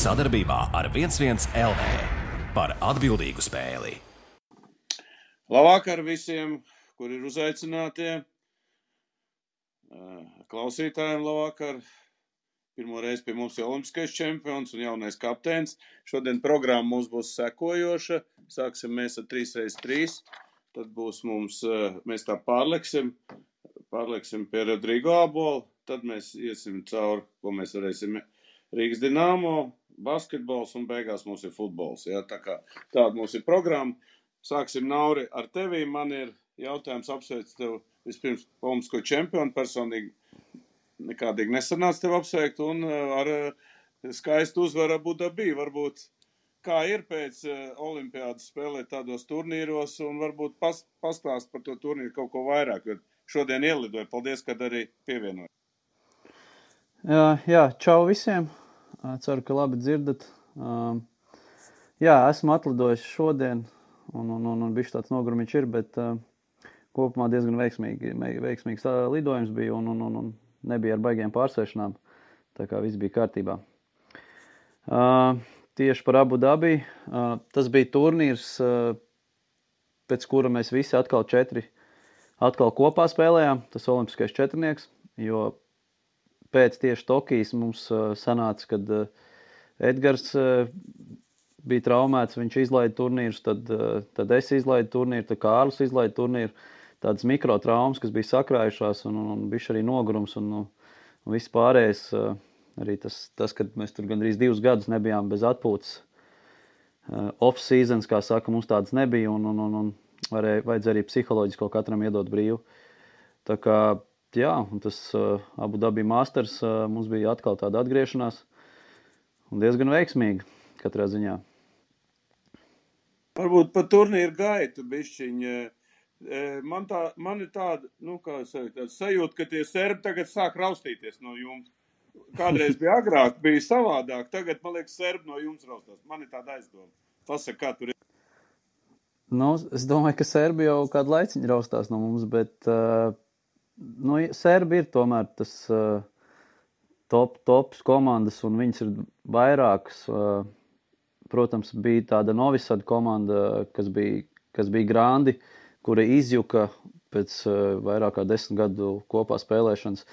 Sadarbībā ar 11 LV par atbildīgu spēli. Labvakar visiem, kuri ir uzaicinātie. Klausītājiem labvakar. Pirmo reizi pie mums ir olimpiskais čempions un jaunais kapteinis. Šodien programma mums būs sekojoša. Sāksim mēs ar 3x3. Tad būs mums, mēs tā pārleksim pie Rodrigo Abola. Tad mēs iesim cauri, ko mēs varēsim Rīgas Dinamo, basketbols un beigās mums ir futbols. Ja? Tāda mums ir programma. Sāksim, Nauri, ar tevi. Man ir jautājums apsveikt tev vispirms olimpisko čempionu. Personīgi nekādīgi nesanāca tev apsveikt un ar skaistu uzvaru Abu Dabī. Varbūt kā ir pēc olimpiādas spēlēt tādos turnīros un varbūt pastāst par to turnīru kaut ko vairāk, jo šodien ielidoju. Paldies, kad arī pievienoji. Jā, čau visiem. Ceru, ka labi dzirdat. Jā, esmu atlidojis šodien un bišķi tāds nogurumiņš ir, bet kopumā diezgan veiksmīgs lidojums bija un nebija ar baigiem pārsēšanām. Tā kā viss bija kārtībā. Tieši par Abu Dabī. Tas bija turnīrs, pēc kura mēs visi atkal kopā spēlējām. Tas olimpiskais četrnieks, jo pēc tieši Tokijas mums sanāca, kad Edgars bija traumēts, viņš izlaida turnīrus, tad es izlaidu turnīru, tad Kārlis izlaida turnīru. Tādas mikrotraumas, kas bija sakrājušās un bišķi arī nogurums un viss pārējais. Arī tas, kad mēs tur gandrīz 2 gadus nebijām bez atpūtas. Off-seasons, kā saka, mums tādas nebija un vajadzēja arī psiholoģiski kaut katram iedot brīvu. Tā kā, jā, un tas Abu Dabī Masters mums bija atkal tāda atgriešanās un diezgan veiksmīga katrā ziņā. Varbūt par turnīru gaitu bišķiņa. Man ir tāda, tāda sajūta, ka tie serbi tagad sāk raustīties no jums. Kādreiz bija agrāk, bija savādāk. Tagad, man liekas, serbi no jums raustās. Man ir tāda aizdoma. Pasaka, kā tur ir. Es domāju, ka serbi jau kādu laiciņu raustās no mums, bet serbi ir tomēr tas tops komandas, un viņas ir vairākas. Protams, bija tāda Novisad komanda, kas bija grandi, kura izjuka pēc vairāk kā 10 gadu kopā spēlēšanas.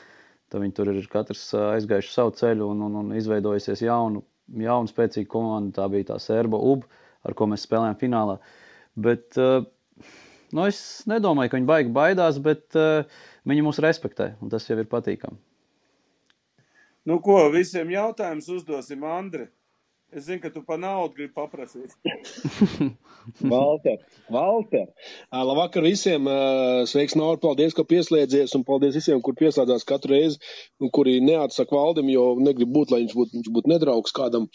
Tad viņi tur ir katrs aizgājuši savu ceļu un izveidojusies jaunu spēcīgu komandu. Tā bija tā serba UB, ar ko mēs spēlējām finālā. Bet es nedomāju, ka viņi baigi baidās, bet viņi mūs respektē, un tas jau ir patīkami. Nu ko, visiem jautājumus uzdosim, Andri. Es zinu, ka tu pa naudu gribi paprasīt. Valter. Labvakar visiem. Sveiks, Nauri. Paldies, ka pieslēdzies, un paldies visiem, kur pieslēdzās katru reizi, un kuri neatsaka Valdim, jo negrib būt, lai viņš būtu nedraugs kādam.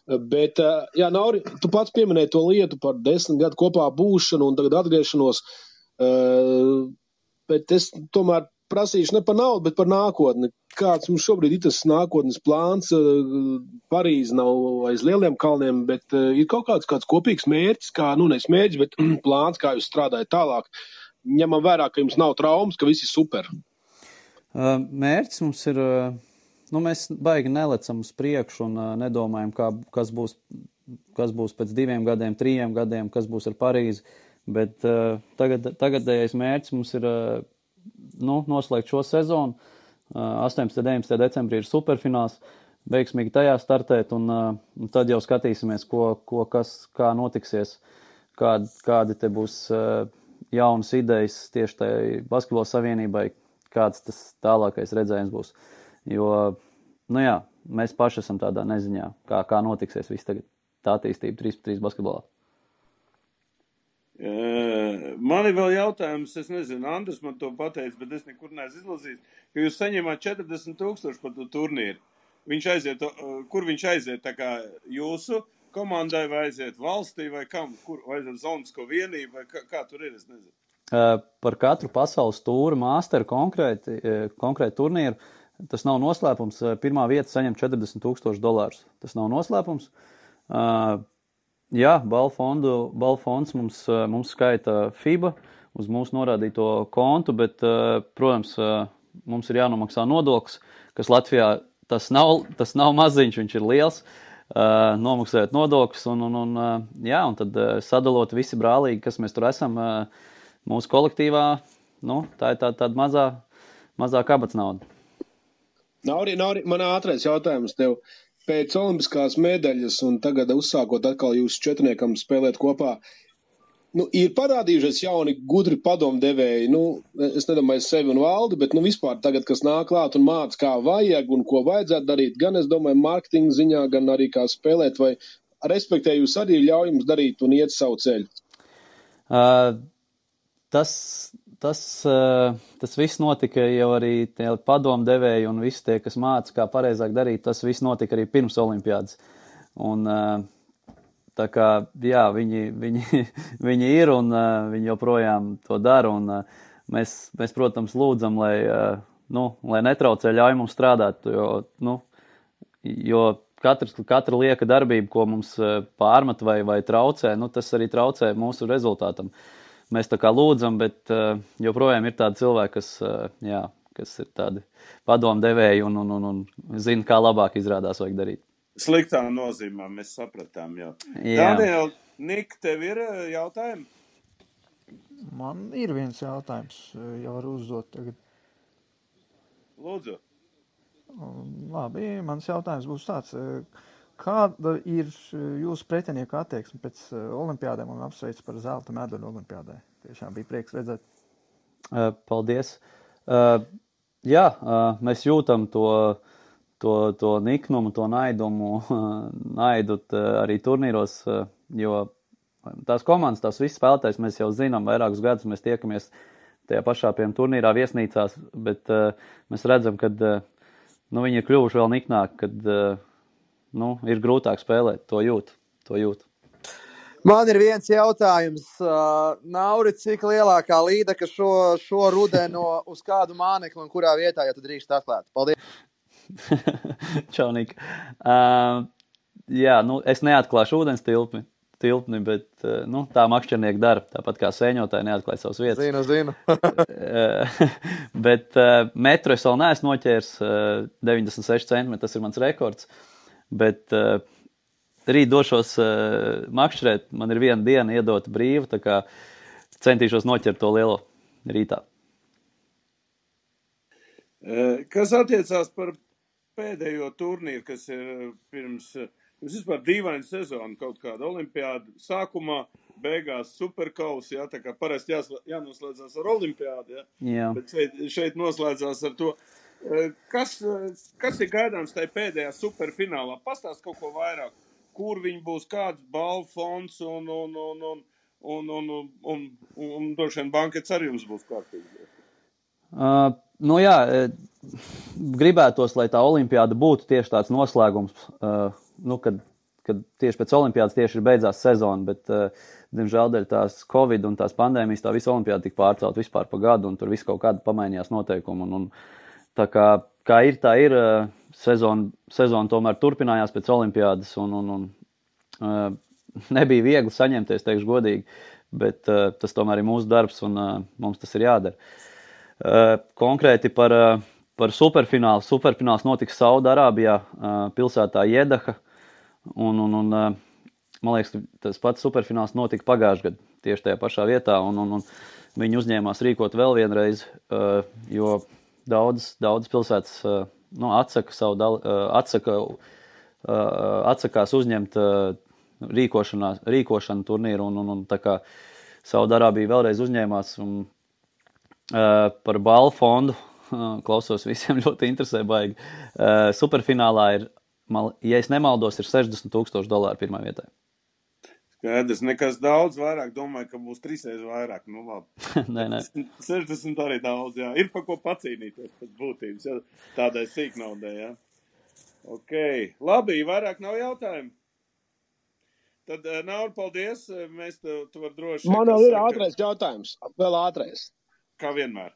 Bet, jā, Nauri, tu pats pieminēji to lietu par 10 gadu kopā būšanu un tagad atgriešanos. Bet es tomēr prasīšu ne par naudu, bet par nākotni. Kāds mums šobrīd ir tas nākotnes plāns? Parīze nav aiz lieliem kalniem, bet ir kaut kāds kopīgs mērķis, nevis mērķis, bet plāns, kā jūs strādājat tālāk. Ņemam vērā, ka jums nav traumas, ka viss ir super. Mērķis mums ir, mēs baigi nelecam uz priekšu un nedomājam, kas būs pēc 2 gadiem, 3 gadiem, kas būs ar Parīzi, bet tagadējais mērķis mums ir noslēgt šo sezonu. 18. 19. decembrī ir superfināls, veiksmīgi tajā startēt, un tad jau skatīsimies, kā notiksies, kādi te būs jaunas idejas tieši tai basketbola savienībai, kāds tas tālākais redzējums būs. Jo, mēs paši esam tādā neziņā, kā notiksies viss tagad tā attīstība 3x3 basketbolā. Man ir vēl jautājums, es nezinu, Andris man to pateica, bet es nekur neesmu izlasījis, ka jūs saņemāt 40,000 par to turnīru. Kur viņš aiziet, tā kā jūsu komandai vai aiziet valstī vai kam? Vai aiziet Zonsko vienību vai kā tur ir, es nezinu. Par katru pasaules tūru masteru konkrēti turnīru, tas nav noslēpums. Pirmā vieta saņem $40,000. Tas nav noslēpums. Jā, balfonds mums skaita FIBA uz mūsu norādīto kontu, bet, protams, mums ir jānomaksā nodoklis, kas Latvijā tas nav maziņš, viņš ir liels. nomaksājot nodokļus un tad sadalot visi brālīgi, kas mēs tur esam mūsu kolektīvā, tā ir tāda mazā kabatas nauda. Nauri, man ātrais jautājums tev. Pēc olimpiskās medaļas un tagad uzsākot atkal jūsu četrniekam spēlēt kopā, ir parādījušies jauni gudri padomdevēji, es nedomāju sevi un valdi, bet vispār tagad, kas nāk klāt un māca, kā vajag un ko vajadzētu darīt, gan es domāju mārketinga ziņā, gan arī kā spēlēt, vai respektēju jūs arī ļauj jums darīt un iet savu ceļu? Tas viss notika jau arī tie padomdevēji un visi tie, kas māca, kā pareizāk darīt, tas viss notika arī pirms olimpiādas. Un tā kā, jā, viņi ir un viņi joprojām to dara, un mēs, protams, lūdzam, lai netraucē, ļauj mums strādāt, jo katra lieka darbība, ko mums pārmet vai traucē, tas arī traucē mūsu rezultātam. Mēs tā kā lūdzam, bet joprojām ir tādi cilvēki, kas ir tādi padomdevēji un zina, kā labāk izrādās vajag darīt. Sliktā nozīmē, mēs sapratām jau. Daniel, Nik, tev ir jautājumi? Man ir viens jautājums, jau var uzdot tagad. Lūdzu. Labi, mans jautājums būs tāds. Kāda ir jūsu pretinieku attieksme pēc olimpiādēm un apsveic par zelta medaļu olimpiādē? Tiešām bija prieks redzēt. Paldies. Mēs jūtam to niknumu, to naidu arī turnīros, jo tās komandas, tās visas spēlētājs mēs jau zinām, vairākus gadus mēs tiekamies tajā pašā turnīrā viesnīcās, bet mēs redzam, ka viņi ir kļuvuši vēl niknāki, kad ir grūtāk spēlēt, to jūt. Man ir viens jautājums. Nauri, cik lielākā līdeka šo rudenu uz kādu mānekli un kurā vietā, ja tu drīkst atklāt? Paldies! Čaunika. Es neatklāšu ūdens tilpni, bet tā makšķernieki dara, tāpat kā sēņotāji neatklāja savas vietas. Zinu. Bet metru es vēl neesmu noķērs, 96 centimetri, tas ir mans rekords, bet rīt došos makšķerēt, man ir viena diena iedota brīva, tā kā centīšos noķert to lielo rītā. Kas attiecās par pēdējo turnīru, kas ir pirms vispār dīvaina sezona, kaut kāda olimpiāda sākumā, beigās superkausi, tā kā parasti jānoslēdzās ar olimpiādu, bet šeit noslēdzās ar to. Kas ir gaidāms tajā pēdējā superfinālā? Pastāst kaut ko vairāk, kur viņi būs, kāds balvu fonds un droši vien bankets arī jums būs kārtīgi. Gribētos, lai tā olimpiāda būtu tieši tāds noslēgums, kad tieši pēc olimpiādas tieši ir beidzās sezona, bet, diemžēl, dēļ tās Covid un tās pandēmijas, tā visa olimpiāda tika pārcelt vispār pa gadu, un tur viss kaut kāda pamainījās noteikumi, un tā kā ir, tā ir, sezona tomēr turpinājās pēc olimpiādas, un nebija viegli saņemties, teikšu godīgi, bet tas tomēr ir mūsu darbs, un mums tas ir jādara. Konkrēti par superfinālu. Superfināls notiks Saudarābijā, pilsētā Jedaha, un man liekas, tas pats superfināls notika pagājušajā gadā, tieši tajā pašā vietā, un viņi uzņēmās rīkot vēl vienreiz, jo daudzas pilsētas atsakās uzņemt rīkošanu turnīru, un tā kā Saudarābija vēlreiz uzņēmās, un par balvu fondu, klausos visiem ļoti interesē baigi. Superfinālā ir, ja es nemaldos, ir $60,000 pirmā vietā. Skaidrs, nekas daudz vairāk, domāju, ka būs 3 reizes vairāk, labi. Nē. 60 arī daudz, jā. Ir pa ko pacīnīties pēc būtības, tādai sīknaudai, jā. Ok, labi, vairāk nav jautājumu. Tad, Nauri, paldies, tu var droši... Man vēl ir ātrais jautājums, vēl ātrais. Kā vienmēr.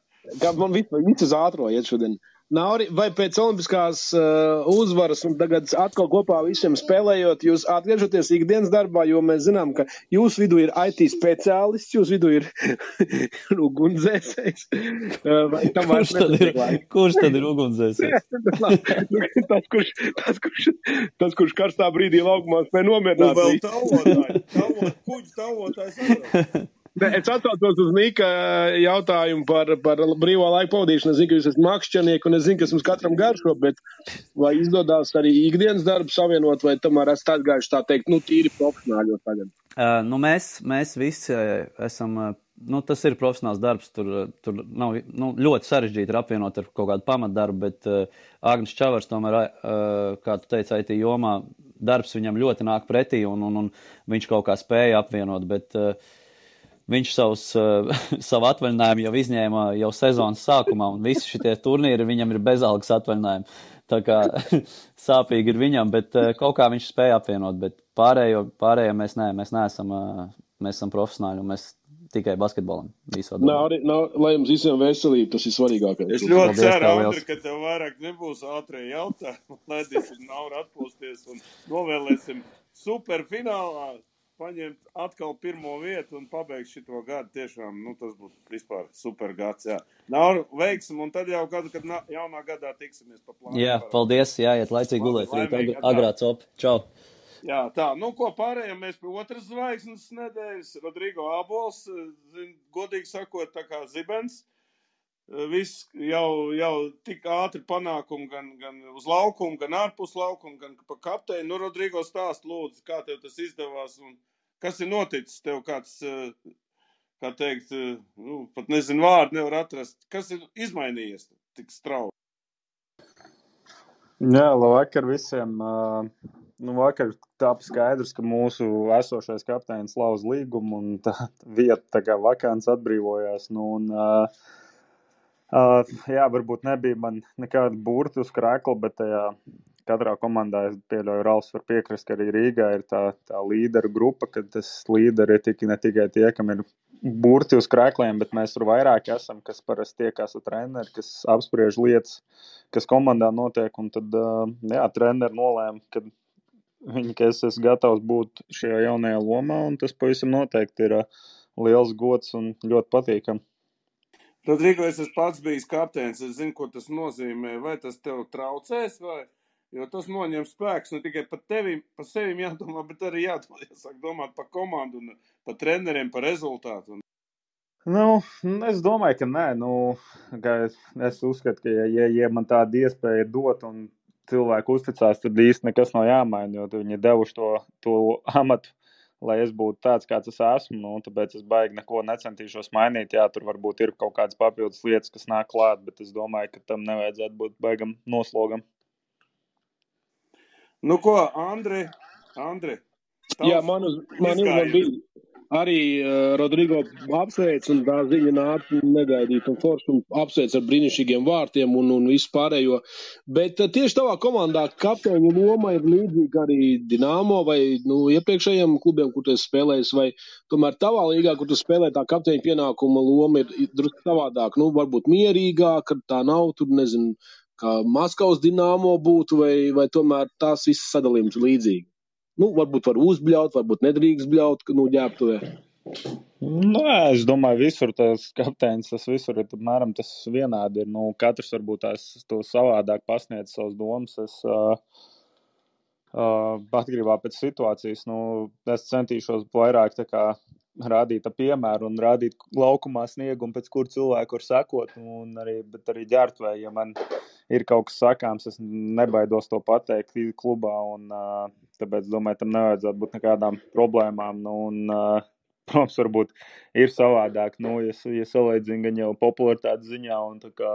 Man viss uz ātro iet šodien. Nauri, vai pēc olimpiskās uzvaras un tagad atkal kopā visiem spēlējot, jūs atgriežaties ikdienas darbā, jo mēs zinām, ka jūsu vidū ir IT speciālists, jūsu vidū ir ugunsdzēsējs. Kurš tad ir ugunsdzēsējs? tas, kurš karstā brīdī laukumā spēj nomierināt. Un vēl kuģu tavotājs atbrauc. Es atsaucos uz Nika jautājumu par brīvā laika pavadīšanu. Es zinu, ka jūs esat makšķernieki un es zinu, kas mums katram garšo, bet vai izdodās arī ikdienas darbu savienot, vai tomēr esat atgājuši tā teikt, tīri profesionāļos tagad? Mēs visi esam, tas ir profesionāls darbs, tur nav, ļoti sarežģīti ir apvienot ar kaut kādu pamatdarbu, bet Agnis Čavars tomēr, kā tu teici, IT jomā, darbs viņam ļoti nāk pretī un viņš kaut kā spēja apvienot, bet viņš savu atvaļinājumu jau izņēma jau sezonas sākumā, un visi šitie turnīri viņam ir bezalgas atvaļinājumi. Tā kā sāpīgi ir viņam, bet kaut kā viņš spēja apvienot, bet pārējo mēs neesam, mēs esam profesionāļi, un mēs tikai basketbolam visu atdod. Lai jums visiem veselība, tas ir svarīgākais. Es ļoti ceru, Andri, ka tev vairāk nebūs ātrie jautājumi, laidīsim Nauru atpūsties un novēlēsim superfinālā paņemt atkal pirmo vietu un pabeigt šito gadu. Tiešām, tas būtu vispār super gads, jā. Nauru, veiksim, un tad jau gadu, kad jaunā gadā tiksimies pa plānu. Jā, paldies, jāiet laicīgi gulēt, rīt agrā copi. Čau. Jā, tā, ko pārējām mēs pie otras zvaigznes nedēļas. Rodrigo Abols, godīgi sakot, tā kā zibens. Viss jau tik ātri panākumi gan uz laukumu, gan ārpus laukumu, gan pa kapteini. Rodrigo stāst lūdzu, kā tev tas izdevās un kas ir noticis tev kāds, kā teikt, pat nezinu vārdu nevar atrast. Kas ir izmainījies tik strauji? Jā, labvakar visiem. Vakar tāpa skaidrs, ka mūsu esošais kapteinis lauz līgumu un tā vieta tā kā vakants atbrīvojās. Jā, varbūt nebija man nekāda burti uz krēkla, bet katrā komandā es pieļauju, Ralfs var piekrist, ka arī Rīgā ir tā līderu grupa, kad tas līderi ir ne tikai tie, kam ir burti uz krēkliem, bet mēs tur vairāk esam, kas parasti tiekās ar treneri, kas apspriež lietas, kas komandā notiek, un tad, treneri nolēma, ka es esmu gatavs būt šajā jaunajā lomā, un tas pavisam noteikti ir liels gods un ļoti patīkam. Rodrigo, es esmu pats bijis kapteinis, es zinu, ko tas nozīmē, vai tas tev traucēs, jo tas noņem spēks, ne tikai par sevim jādomā, bet arī jāsāk domāt par komandu un par treneriem, par rezultātu. Es domāju, ka nē, ka es uzskatu, ka ja man tāda iespēja dot un cilvēku uzticās, tad īsti nekas nav jāmaina, jo viņi devuši to amatu, lai es būtu tāds, kāds es esmu, tāpēc es baigi neko necentīšos mainīt. Jā, tur varbūt ir kaut kādas papildus lietas, kas nāk klāt, bet es domāju, ka tam nevajadzētu būt baigam noslogam. Ko, Andri? Jā, man bija arī Rodrigo apsveic, un tā ziņa nāca negaidīt un forši un apsveic ar brīnišķīgiem vārtiem un visu pārējo. Bet tieši tavā komandā kapteiņu loma ir līdzīga arī Dinamo vai iepriekšējiem klubiem, kur tu esi spēlējis, vai tomēr tavā līgā, kur tu spēlē, tā kapteiņa pienākuma loma ir drusku savādāk, varbūt mierīgāk, ka tā nav, tur nezinu, kā Maskavas Dinamo būtu, vai tomēr tās visas sadalījums ir līdzīgi. Varbūt var uzbļaut, varbūt nedrīkst bļaut, ģērbtuvē. Es domāju, visur tas kapteinis, tas visur ir apmēram tas vienādi ir. Katrs varbūt to savādāk pasniedz savas domas. Es atgrībā pēc situācijas, es centīšos vairāk tā kā rādīt piemēru un rādīt laukumā sniegumu, pēc kur cilvēku var sekot, bet arī ģērbtuvē, ja man ir kaut kas sakāms, es nebaidos to pateikt klubā, un tāpēc, domāju, tam nevajadzētu būt nekādām problēmām, protams, varbūt ir savādāk, ja salīdzina gan jau popularitātes ziņā un tā kā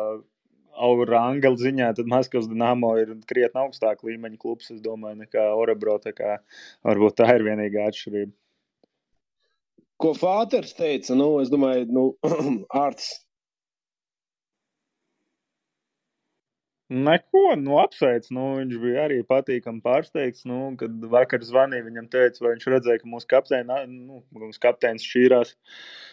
ranga ziņā, tad Maskavas Dinamo ir krietni augstāk līmeņa klubs, es domāju, nekā Orebro, tā kā varbūt tā ir vienīgā atšķirība. Ko Fāters teica, es domāju, Ārtis. Neko, apsveic, viņš bija arī patīkami pārsteigts, kad vakar zvanīja, viņam teica, vai viņš redzēja, ka mūsu kapteinis šķīrās.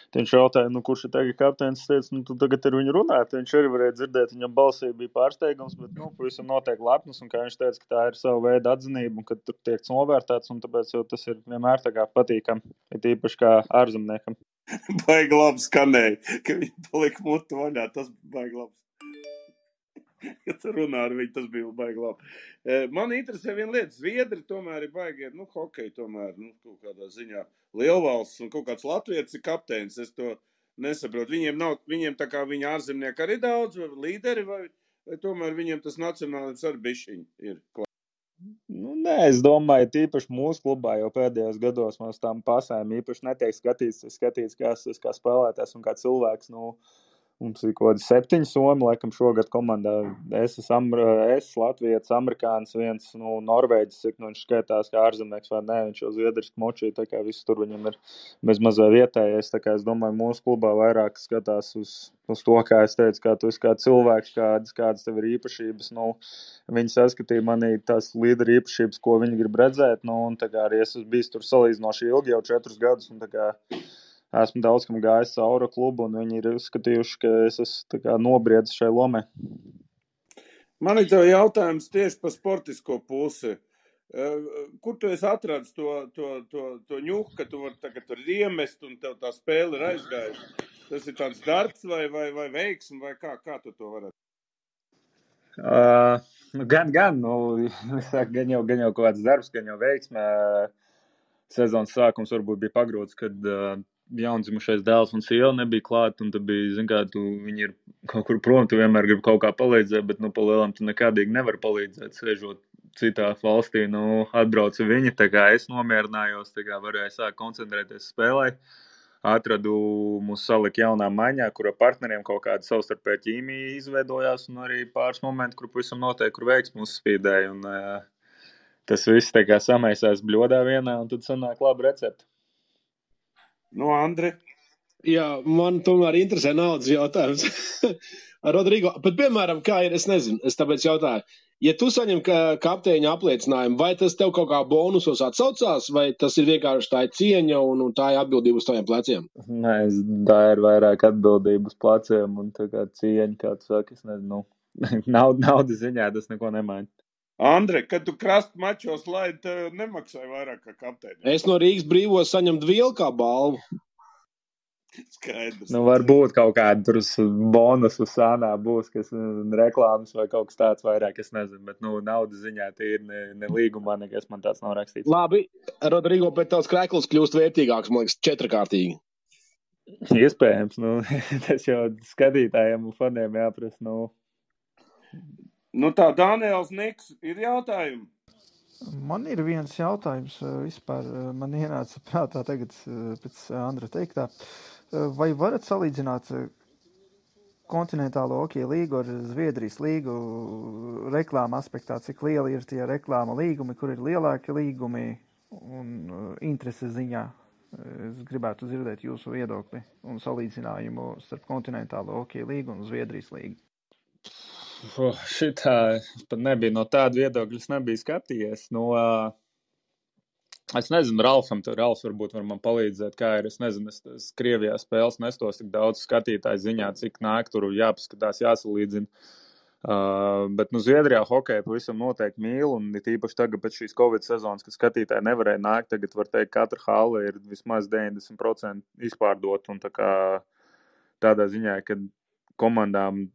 Tad viņš jautāja, kurš ir tagad kapteinis, teica, tu tagad ar viņu runāt, viņš arī varēja dzirdēt, viņam balsī bija pārsteigums, bet, pavisam noteikti lepns, un kā viņš teica, ka tā ir sava veida atzinība, un ka tur tiek novērtēts, un tāpēc jau tas ir vienmēr tā kā patīkam, ir īpaši kā ārzemniekam. Baigi labi skanēja, ka viņi palika mutu vaļā, tas baigi labs. Ja tu runā ar viņu, tas bija baigi labi. Man interesē viena lieta, Zviedri tomēr ir baigi, hokeja tomēr, kaut kādā ziņā lielvalsts un kaut kāds latvietis ir kapteinis, es to nesaprotu. Viņiem tā kā viņa ārzemnieki arī daudz, vai līderi, vai tomēr viņiem tas nacionālisms arī bišķiņi ir klāt. Nē, es domāju, tīpaši mūsu klubā jau pēdējos gados mums tām pasēm īpaši netiek skatīts kā spēlētājs un kā cilvēks, Mums ir kaut kādi 7 somi, laikam šogad komandā. Es latvietis, amerikānis, viens norvēģis, cik viņš skaitās kā ārzemnieks vai nē, viņš jau zviedriski močī, tā kā viss tur viņam ir bez mazā vietējais. Tā kā es domāju, mūsu klubā vairāk skatās uz to, kā es teicu, kā tu esi kā cilvēks, kādas tev ir īpašības. Viņi saskatīja manī tās līderi īpašības, ko viņi grib redzēt, un tā kā arī es esmu bijis tur salīdzinoši ilgi, jau 4 gadus, un tā kā esmu daudz kam gājis cauri klubu, un viņi ir uzskatījuši, ka es esmu nobriedzis šai lomai. Man ir tev jautājums tieši par sportisko pusi. Kur tu esi atradis to ņuhu, ka tu vari tagad tur iemest, un tev tā spēle ir aizgājusi? Tas ir tāds darbs vai veiksmi, vai kā tu to varētu? Gan jau kaut kāds darbs, gan jau veiksme. Sezonas sākums varbūt bija pagrūts, kad jaundzimušais dēls un sieva nebija klāt, un tad bija, viņi ir kaut kur prom, tu vienmēr gribi kaut kā palīdzēt, bet, pa lielam tu nekādīgi nevar palīdzēt, sēžot citā valstī, atbrauca viņi, tā kā es nomierinājos, tā kā varēju sākt koncentrēties spēlē, atradu mūs salikt jaunā maiņā, kura partneriem kaut kāda savstarpēja ķīmija izveidojās, un arī pāris momenti, kur pavisam noteikti, kur veiksmi uzspīdēja, un tas viss tā kā samaisās bļodā vienā, un tad sanāk labi recepti. Andri? Jā, man tomēr interesē naudas jautājums. Rodrigo, bet piemēram, kā ir, es nezinu, es tāpēc jautāju, ja tu saņem kapteiņa apliecinājumu, vai tas tev kaut kā bonusos atsaucās, vai tas ir vienkārši tā cieņa un tā ir atbildība uz taviem pleciem? Nē, tā ir vairāk atbildība uz pleciem un tā kā cieņa, kā tu saki, es nezinu, naudas ziņā tas neko nemaina. Andri, kad tu krasta mačos laidi, tev nemaksāja vairāk kā kapteini. Es no Rīgas Brīvos saņemt vielu kā balvu. Skaidrs. Varbūt kaut kāda tur bonusu sānā būs, kas reklāmas vai kaut kas tāds vairāk, es nezinu, bet naudas ziņā tie ir ne līgumā, nekas man tāds nav rakstīts. Labi, Rodrigo, bet tavs krēkls kļūst vērtīgāks, man liekas, 4-kārtīgi. Iespējams, tas jau skatītājiem un faniem jāprasa, tā, Daniels Niks, ir jautājumi? Man ir viens jautājums vispār. Man ienāca prātā tagad pēc Andra teiktā. Vai varat salīdzināt kontinentālo hokeja līgu ar Zviedrijas līgu reklāma aspektā? Cik lieli ir tie reklāma līgumi, kur ir lielāki līgumi un intereses ziņā? Es gribētu dzirdēt jūsu viedokli un salīdzinājumu starp kontinentālo hokeja līgu un Zviedrijas līgu. Šitā pat nebija no tāda viedokļa, es nebiju skatījies. Es nezinu, Ralfs varbūt var man palīdzēt, kā ir. Es nezinu, es Krievijā spēles nestos tik daudz skatītāju ziņā, cik nāk tur jāpaskatās, jāsalīdzina. Bet Zviedrijā hokeja pavisam noteikti mīl, un tīpaši tagad pēc šīs Covid sezonas, kad skatītāji nevarēja nākt, tagad var teikt, katra hale ir vismaz 90% izpārdot, un tādā ziņā, kad komandām,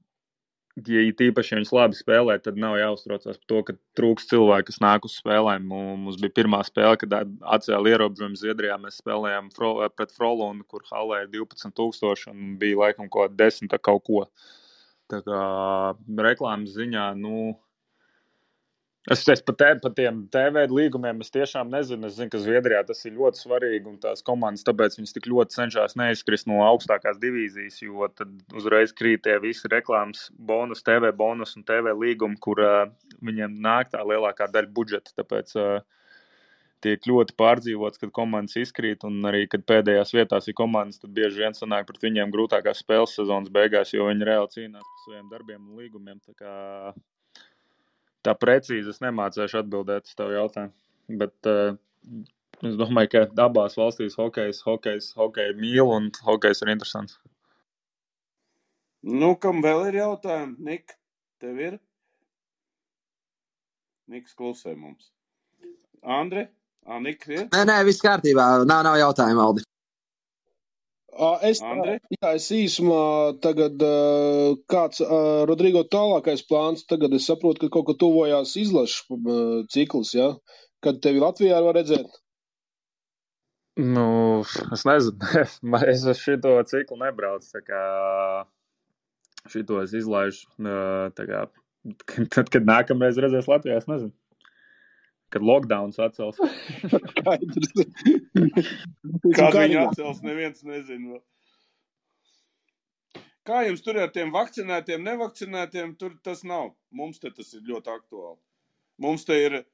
ja tīpaši viņas labi spēlē, tad nav jāuztraucās par to, ka trūks cilvēki, kas nāk uz spēlēm. Mums bija pirmā spēle, kad atcēla ierobežojumu Zviedrijā. Mēs spēlējām pret Frolundu, kur halē ir 12,000 un bija laikam kaut 10 kaut ko. Tā kā reklāmas ziņā, es par tiem TV līgumiem es tiešām nezinu. Es zinu, ka Zviedrijā tas ir ļoti svarīgi un tās komandas, tāpēc viņas tik ļoti cenšas neizkrist no augstākās divīzijas, jo tad uzreiz krīt tie visi reklāmas bonus, TV bonus un TV līgumi, kur viņiem nāk tā lielākā daļa budžeta, tāpēc tiek ļoti pārdzīvots, kad komandas izkrīt, un arī, kad pēdējās vietās ir komandas, tad bieži vien sanāk pret viņiem grūtākās spēles sezonas beigās, jo viņi reāli cīnās par saviem darbiem un līgumiem. Tā kā tā precīzi es nemācēšu atbildēt uz tavu jautājumu. Bet es domāju, ka abās valstīs hokeju mīl un hokejs ir interesants. Nu, kam vēl ir jautājumi? Nik, tev ir? Niks klusē mums. Andre? Nik ir? Nē, viss kārtībā. Nav jautājumu, Aldi. Es īsumā tagad kāds Rodrigo tālākais plāns, tagad es saprotu, ka kaut kā tuvojās izlašu cikls, ja? Kad tevi Latvijā var redzēt? Nu, es nezinu, es šito ciklu nebraucu, tā kā šito es izlaižu, tā kā, tad, kad nākamreiz redzēs Latvijā, es nezinu. Kad lockdowns atcels. Kad viņi atcels, neviens nezinu. Kā jums tur ar tiem vakcinētiem, nevakcinētiem, tur tas nav. Mums te tas ir ļoti aktuāli. Mums te ir,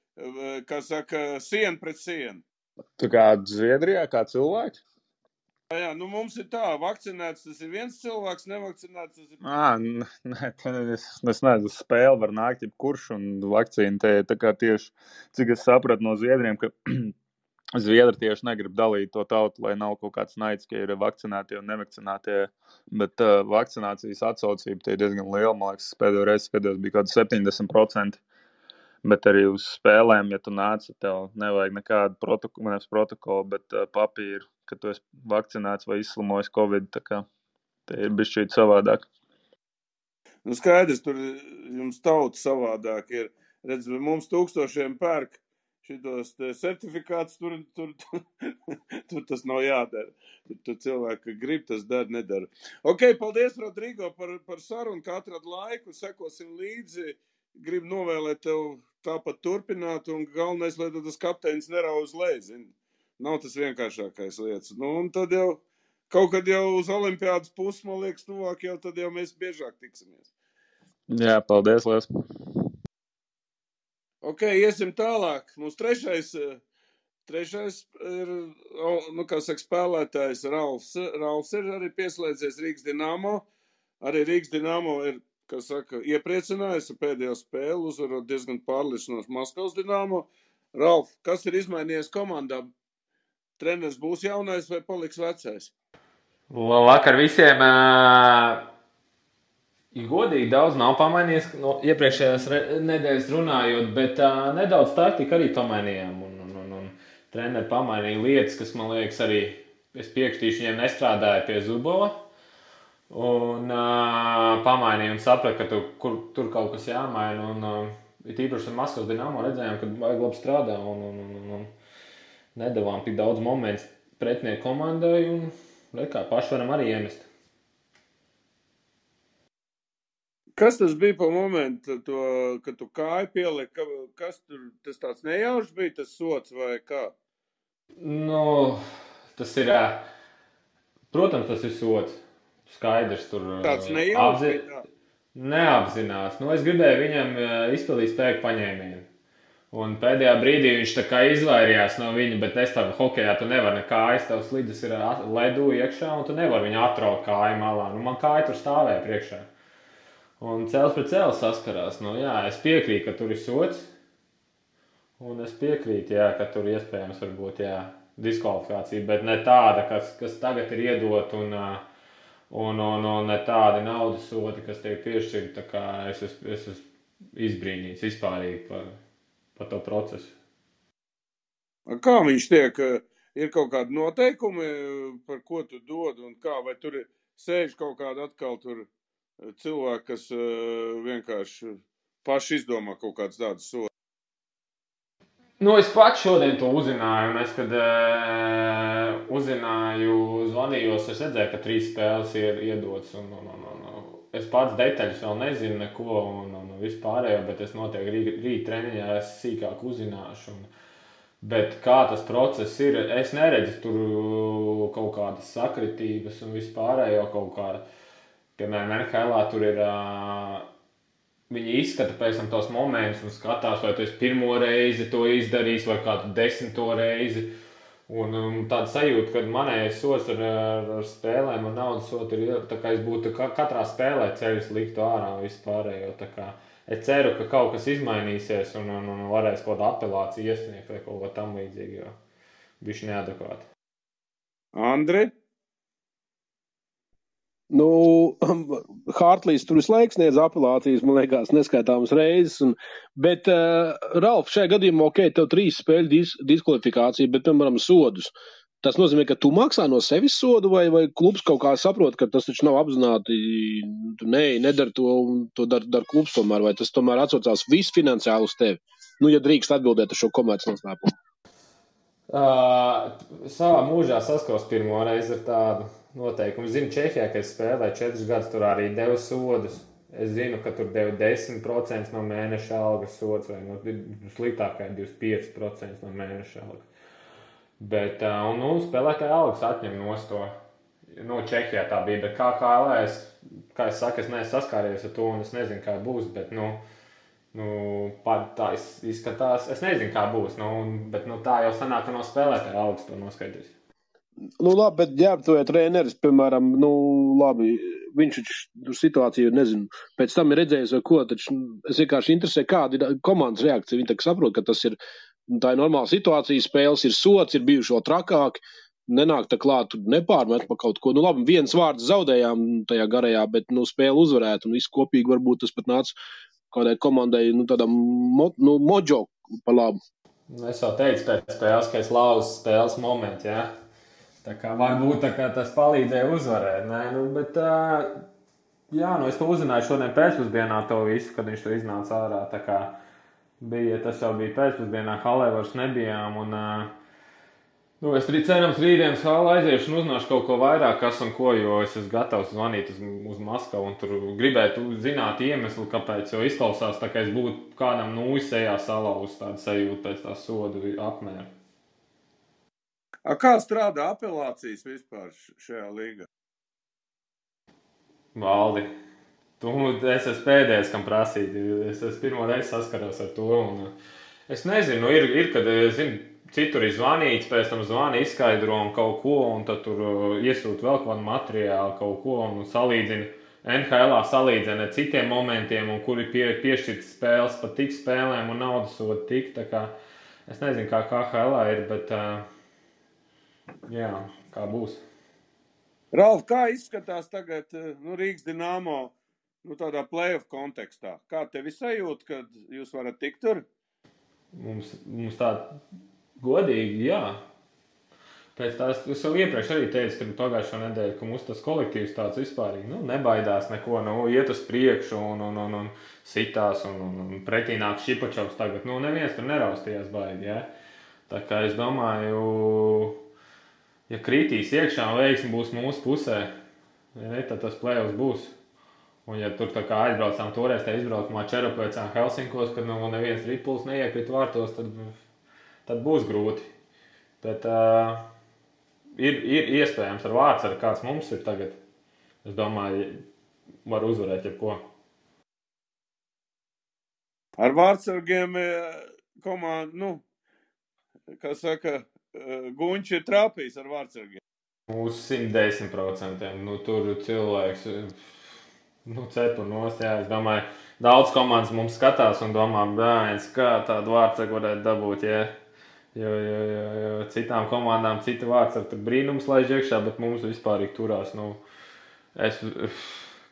kā saka, siena pret sienu. Tu kā Zviedrijā, kā cilvēks? Jā, nu mums ir tā, vakcinēts tas ir viens cilvēks, nevakcinēts tas ir... Nē, es nezinu, spēle var nākt jebkurš, un vakcīna te tā kā tieši, cik es sapratu no Zviedriem, ka Zviedri tieši negrib dalīt to tautu, lai nav kaut kāds naids, ka ir vakcinētie un nevakcinētie, bet vakcinācijas atsaucība tie ir diezgan liela, man liekas, pēdējo reizi skatījos bija kaut 70%. Bet arī uz spēlēm, ja tu nāc, tev nevajag nekādu protokolu, bet papīru, ka tu esi vakcinēts vai izslimojis Covid, tā kā te ir bišķīt savādāk. Nu skaidrs, tur jums tauta savādāk ir. Redz, mums tūkstošiem pērk šitos certifikātus, tur tas nav jādara. Tur cilvēki grib, tas dara, nedara. Ok, paldies, Rodrigo, par sarunu, ka atrad laiku, sekosim līdzi. Gribu novēlēt tev tāpat turpināt, un galvenais, lai tas kapteinis nerauz leji, zini. Nav tas vienkāršākais lietas. Nu, un tad jau, kaut kad jau uz olimpiādas pusi, man liekas, tuvāk jau, tad jau mēs biežāk tiksimies. Jā, paldies, Lies. Ok, iesim tālāk. Mums trešais ir, nu, kā saka, spēlētājs Ralfs. Ralfs ir arī pieslēdzies Rīgas Dinamo. Arī Rīgas Dinamo ir, kā saka, iepriecinājis ar pēdējo spēli, uzvarot diezgan pārliecinoši Maskavas Dinamo. Ralf, kas ir izmainījies komandā? Treneris būs jaunais vai paliks vecais? Labvakar visiem. Godīgi daudz nav pamainījies no iepriekšējās nedēļas runājot, bet nedaudz taktika arī pamainījām. Un treneri pamainīja lietas, kas, man liekas, arī es piekritīšu, viņiem nestrādāja pie Zubova. Un pamainīja un saprata, ka tur kaut kas jāmaina. Un tīpaši ar Maskavas Dinamo redzējām, ka vajag labi strādā un nedavām tik daudz momentu pretinieku komandai. Un kā paši varam arī iemest. Kas tas bija pa momentu, kad tu kāju pieliki? Kas tur, tas tāds nejaušs bija, tas sots vai kā? Nu, tas ir, protams, tas ir sots. Skaidrs, tur tāds nejaušs bija tā? Neapzinās. Nu, es gribēju viņam izpildīt spēku paņēmienu. Un pēdējā brīdī viņš tā kā izvairījās no viņa, bet es tādu hokejā tu nevari ne kājas, tavs slidas ir ledu iekšā un tu nevari viņu atraut kāju malā. Nu, man kāja tur stāvēja priekšā. Un cēls pret cēlu saskarās. Nu, jā, es piekrītu, ka tur ir sots. Un es piekrītu, jā, ka tur iespējams varbūt, jā, diskvalifikācija, bet ne tāda, kas tagad ir iedot un ne tādi naudas sodi, kas tiek piešķirti. Tā kā es esmu izbrīnīts vispārīgi par to procesu. Kā viņš tiek? Ir kaut kādi noteikumi, par ko tu dod un kā? Vai tur sēž kaut kāda atkal tur cilvēki, kas vienkārši paši izdomā kaut kāds tāds sods? Nu, es pats šodien to uzzināju, un es, kad uzzināju, zvanījos, es redzēju, ka 3 spēles ir iedotas, un es pats detaļas vēl nezinu neko, un vispārējo, bet es noteikti rīt treniņā es sīkāk uzzināšu, bet kā tas process ir, es neredzu tur kaut kādas sakritības un vispārējo kaut kāda, piemēram, NHL tur ir... Viņi izskata pēc tam tos momentus un skatās, vai tu esi pirmo reizi to izdarījis vai kādu 10. reizi. Un tāda sajūta, ka manējais sots ar spēlēm un naudas sotu ir, tā kā es būtu katrā spēlē ceļus liktu ārā vispārējo. Tā kā es ceru, ka kaut kas izmainīsies un varēs kaut kādu apelāciju iesniegt vai kaut ko tam līdzīgi, jo bišķi neadekvāti. Andri? Nu, Hartlīs tur visu laiku sniedz apelācijas, man liekas, neskaitāmas reizes. Bet, Ralf, šajā gadījumā, tev 3 spēļu diskvalifikācija, bet, piemēram, sodus. Tas nozīmē, ka tu maksā no sevis sodu, vai klubs kaut kā saprot, ka tas taču nav apzināti, tu nedari to, un to dar klubs tomēr, vai tas tomēr atsaucās viss finansiāli uz tevi? Nu, ja drīkst atbildēt uz šo komercnoslēpumu. Savā mūžā saskaros pirmo reizi ar tādu noteikumu. Es zinu, Čehijā, ka es spēlēju 4 gadus, tur arī devu sodus. Es zinu, ka tur deva 10% no mēneša algas sods, vai sliktākai 25% no mēneša algas. Bet, spēlētāja algas atņem nost to. Čehijā tā bija, bet KHL, kā es saku, es neesmu saskāries ar to, un es nezinu, kā būs, bet, tā izskatās, es nezinu, kā būs, bet tā jau sanāk, ka no spēlētāja algas to noskaidrīs. Labi, bet ģērbtoja treneris, piemēram, labi, viņš tur situāciju, nezinu, pēc tam ir redzējis vai ko, taču es vienkārši interesē, kāda ir komandas reakcija. Viņi tā saprot, ka tā ir normāla situācija, spēles ir sots, ir bijuši vēl trakāki, nenāk tā klāt, nepārmet pa kaut ko. Labi, viens vārds zaudējām tajā garajā, bet, spēle uzvarēt, un viss kopīgi varbūt tas pat nāca kādai komandai, tādam moģo pa labu. Es jau teicu pēc spēles, ka es lauzu spēles momentu, jā. Tā kā varbūt tas palīdzēja uzvarēt, bet, es to uzzināju šodien pēcpusdienā to visu, kad viņš to iznāca ārā, tā kā tas jau bija pēcpusdienā, halē vairs nebijām, un, es cerams rītdienas halē aiziešu un uzzināšu kaut ko vairāk, kas un ko, jo es esmu gatavs zvanīt uz Maskavu, un tur gribētu zināt iemeslu, kāpēc, jo izklausās tā, ka es būtu kādam sejā salauz tādu sajūtu pēc tā sodu apmēra. Kā strādā apelācijas vispār šajā līgā? Valdi, es esmu pēdējais, kam prasīt. Es pirmo reizi saskaros ar to. Un es nezinu, ir kad, citur ir zvanīts, pēc tam zvani izskaidro un kaut ko, un tad tur iesūt vēl kādu materiālu, kaut ko, un salīdzina. NHL salīdzina ar citiem momentiem, un kuri piešķirts spēles pa tik spēlēm un naudas sodu tik. Tā kā es nezinu, kā KHL ir, bet... Jā, kā būs. Ralf, kā izskatās tagad Rīgas Dinamo tādā play-off kontekstā? Kā tevi sajūt, kad jūs varat tikt tur? Mums tā godīgi, jā. Pēc tās, es jau iepriekš arī teicu, kad pagājušo nedēļu, ka mums tas kolektīvs tāds vispārīgi, nebaidās neko, iet uz priekšu un sitās un pretī nāk Šipačovs tagad. Neviens tur neraustījās baigi, jā. Tā kā es domāju... Ja kritīs iekšā un veiksmi būs mūsu pusē, tad tas play-offs būs. Un ja tur tā kā aizbraucām toreiz, tā izbraukumā Čeropēcām Helsinkos, kad neviens ripuls neiekrit vārtos, tad būs grūti. Bet ir iespējams ar Vārtsargu, kāds mums ir tagad. Es domāju, var uzvarēt jebko. Ar Vārtsargiem komanda, kā saka... Guņš ir trāpījis ar Vārtsargiem. Uz 110%. Tur cilvēks cepu nost. Jā, es domāju, daudz komandas mums skatās un domā, bērns, kā tādu Vārtsargu varētu dabūt. Jā. Jo citām komandām cita Vārtsargu tur brīnums laiž iekšā, bet mums vispārīgi turās.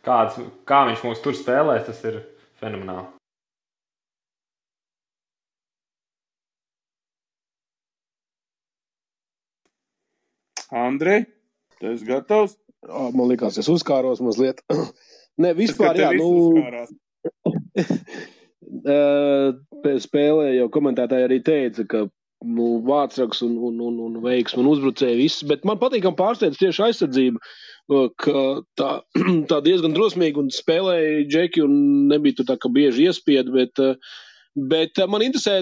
Kā viņš mūs tur spēlēs, tas ir fenomenāli. Andri, tu esi gatavs? Man likās, es uzkāros mazliet. Ne, vispār, jā, spēlē jau komentētāji arī teica, ka Vārtsargs un veiksmi un uzbrucēji viss, bet man patīkam pārsteidz tieši aizsardzība, ka tā diezgan drosmīgi un spēlēja džeki un nebija tur tā, ka bieži iespied, bet man interesē,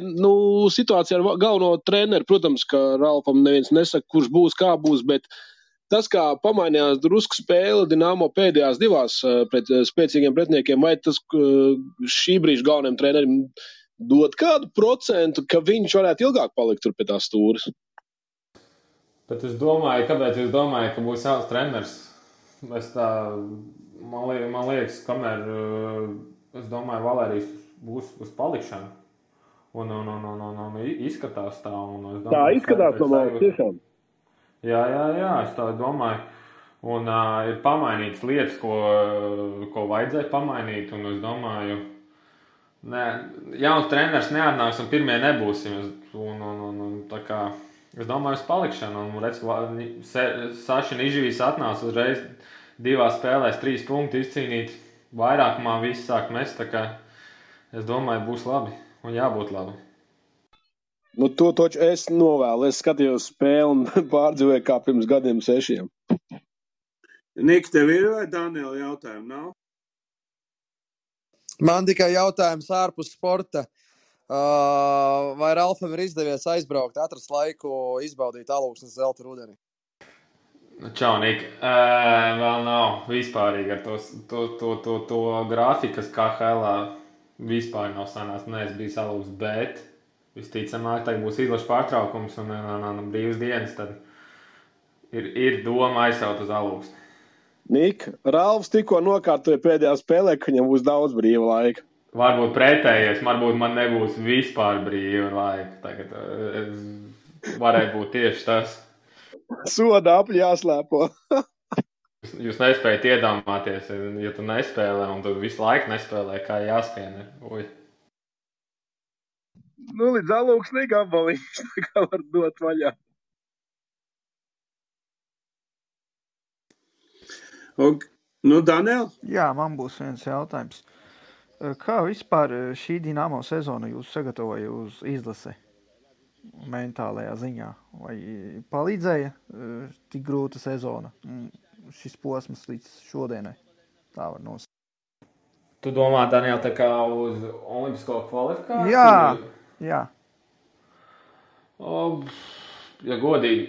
situācija ar galveno treneru. Protams, ka Ralfam neviens nesaka, kurš būs, kā būs, bet tas, kā pamainījās drusku spēle Dinamo pēdējās 2 pret spēcīgiem pretiniekiem, vai tas šī brīža galvenajam trenerim dod kādu procentu, ka viņš varētu ilgāk palikt tur pie tās stūres? Bet es domāju, kāpēc jūs domājat, ka būs jauns treneris? Man liekas, kamēr, es domāju, Valērijas būs uz palikšanu. Un izskatās tā. Un es Tā domāju, izskatās no malas tiešām. Jā, es tā domāju. Un ir pamainītas lietas, ko vajadzēja pamainīt. Un es domāju, jauns treneris neatnāks un pirmie nebūsim. Un tā kā es domāju uz palikšanu. Un redz, Saša Nižvīs atnāca uzreiz 2 spēlēs 3 punktu izcīnīt. Vairākumā viss sāk mest. Tā kā es domāju, būs labi un jābūt labi. Nu, to taču es novēlu. Es skatījos spēli un pārdzīvoju kā pirms gadiem 6. Nika, tev ir vai Daniela jautājumi nav? Man tikai jautājums ārpus sporta. Vai Ralfam ir izdevies aizbraukt, atrast laiku, izbaudīt Alūksnes zelta rudeni? Čau, Nika. Vēl nav vispārīgi ar to grafiku, kas KHL-ā vispār nav sanācis. Nē, es biju Alūksnes, bet visticamāk, tagad būs izlaša pārtraukums un brīvas dienas, tad ir doma aizsaut uz Alūksni. Nika, Ralfs tikko nokārtoja pēdējā spēlē, ka viņam būs daudz brīva laika. Varbūt pretējies, varbūt man nebūs vispār brīva laika. Tagad varētu būt tieši tas. Soda apļi jāslēpo. Jūs nespējat iedomāties, ja tu nespēlē un tu visu laiku nespēlē, kā jāskrien. Uj. Nu, līdz Alūksnī gabalīši, tā kā var dot vaļā. Nu, Daniel? Jā, man būs viens jautājums. Kā vispār šī Dinamo sezona jūs sagatavoja uz izlasi mentālajā ziņā? Vai palīdzēja tik grūta sezona, šis posms līdz šodienai? Tā var nosaukt. Tu domā, Daniel, tā kā uz olimpisko kvalifikāciju? Jā. Ja godīgi,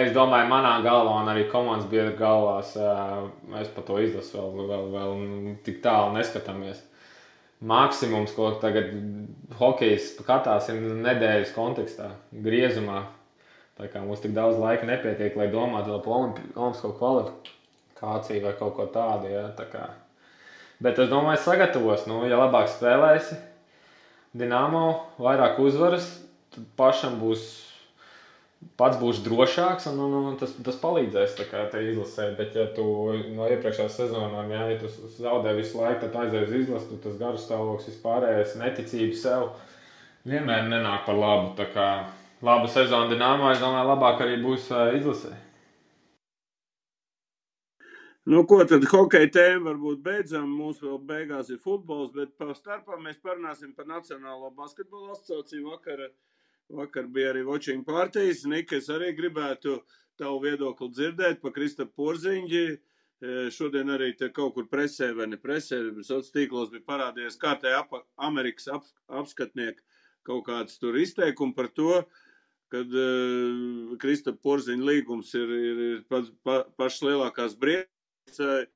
es domāju, manā galvā un arī komandas biedru galvās mēs par to izlasu vēl tik tālu neskatāmies. Maksimums, ko tagad hokejs skatās, ir nedēļas kontekstā, griezumā. Tā kā mums tik daudz laika nepietiek, lai domātu par olimpisko kvalifikāciju vai kaut ko tādu. Ja, tā kā. Bet es domāju, sagatavos. Nu, ja labāk spēlēsi Dinamo, vairāk uzvaras, tad pašam pats būs drošāks un tas palīdzēs tā kā te izlasē. Bet ja tu no iepriekšējās sezonām, ja tu zaudē visu laiku, tad aizēj uz izlasi, tas garas stāvoklis vispārējais, neticība sev vienmēr nenāk par labu. Tā kā laba sezona Dinamo, es domāju, labāk arī būs izlasē. Nu, ko tad hokeja tēma varbūt beidzam, mums vēl beigās ir futbols, bet pa starpā mēs parunāsim par Nacionālo basketbola asociāciju Vakar bija arī watching partijas. Nika, es arī gribētu tavu viedokli dzirdēt par Kristapu Porziņģi. Šodien arī te kaut kur presē vai ne presē, sociālos tīklos bija parādījies kārtēji Amerikas apskatnieki kaut kāds tur izteikumi par to, kad Kristapa Porziņģa līgums ir pašas lielākās briesmas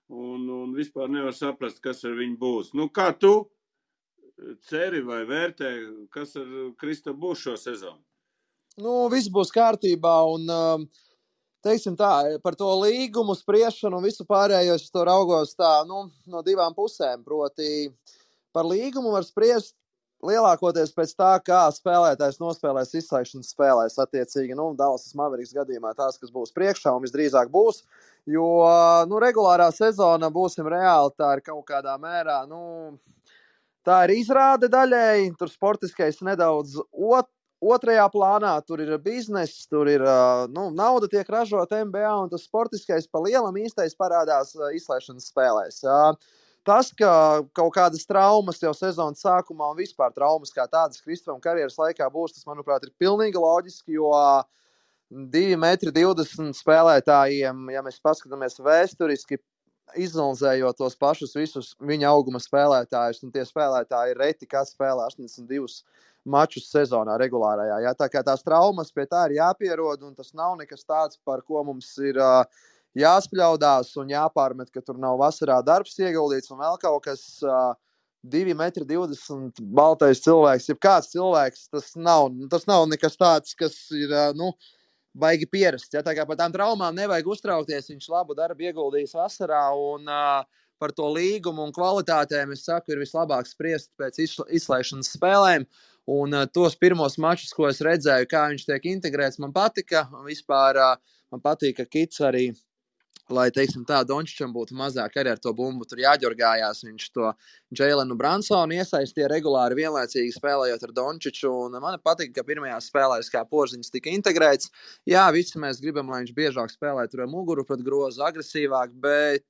un vispār nevar saprast, kas ar viņu būs. Nu, kā tu ceri vai vērtē, kas ar Kristapu būs šo sezonu? Nu, viss būs kārtībā un, teiksim tā, par to līgumu spriešanu un visu pārējo es to raugos tā, no 2 pusēm. Proti, par līgumu var spriest lielākoties pēc tā, kā spēlētājs nospēlēs izslēgšanas spēlēs attiecīgi. Dallas Mavericks gadījumā tās, kas būs priekšā un visdrīzāk būs, jo, regulārā sezona, būsim reāli, tā ir kaut kādā mērā, tā ir izrāde daļēji, tur sportiskais nedaudz otrajā plānā, tur ir bizness, tur ir, nauda tiek ražota NBA un tas sportiskais pa lielam īstais parādās izslēgšanas spēlēs. Tas, ka kaut kādas traumas jau sezonas sākumā un vispār traumas kā tādas Kristapam karjeras laikā būs, tas, manuprāt, ir pilnīgi loģiski, jo 2,20 m spēlētājiem, ja mēs paskatāmies vēsturiski, izanalizējot tos pašus visus viņa auguma spēlētājus, un tie spēlētāji ir reti, kas spēlē 82 mačus sezonā regulārajā. Ja? Tā kā tās traumas pie tā ir jāpierod, un tas nav nekas tāds, par ko mums ir jāspļaudās un jāpārmet, ka tur nav vasarā darbs ieguldīts un vēl kaut kas 2,20 m baltais cilvēks, jeb kāds cilvēks, tas nav nekas tāds, kas ir, baigi pierasts. Ja? Tā kā par tām traumām nevajag uztraukties, viņš labu darbu ieguldījis vasarā un par to līgumu un kvalitātēm, es saku, ir vislabāk spriest pēc izslēgšanas spēlēm. Un tos pirmos mačus, ko es redzēju, kā viņš tiek integrēts, man patika. Vispār man patīk, ka Kits arī, lai, teiksim tā, Dončičam būtu mazāk arī ar to bumbu tur jāģorgājās. Viņš to Džeilenu Bransonu iesaistīja regulāri vienlaicīgi spēlējot ar Dončiču. Un man patīk, ka pirmajās spēlēs kā Porziņš tika integrēts. Jā, visi mēs gribam, lai viņš biežāk spēlē tur ar muguru pret grozu, agresīvāk, bet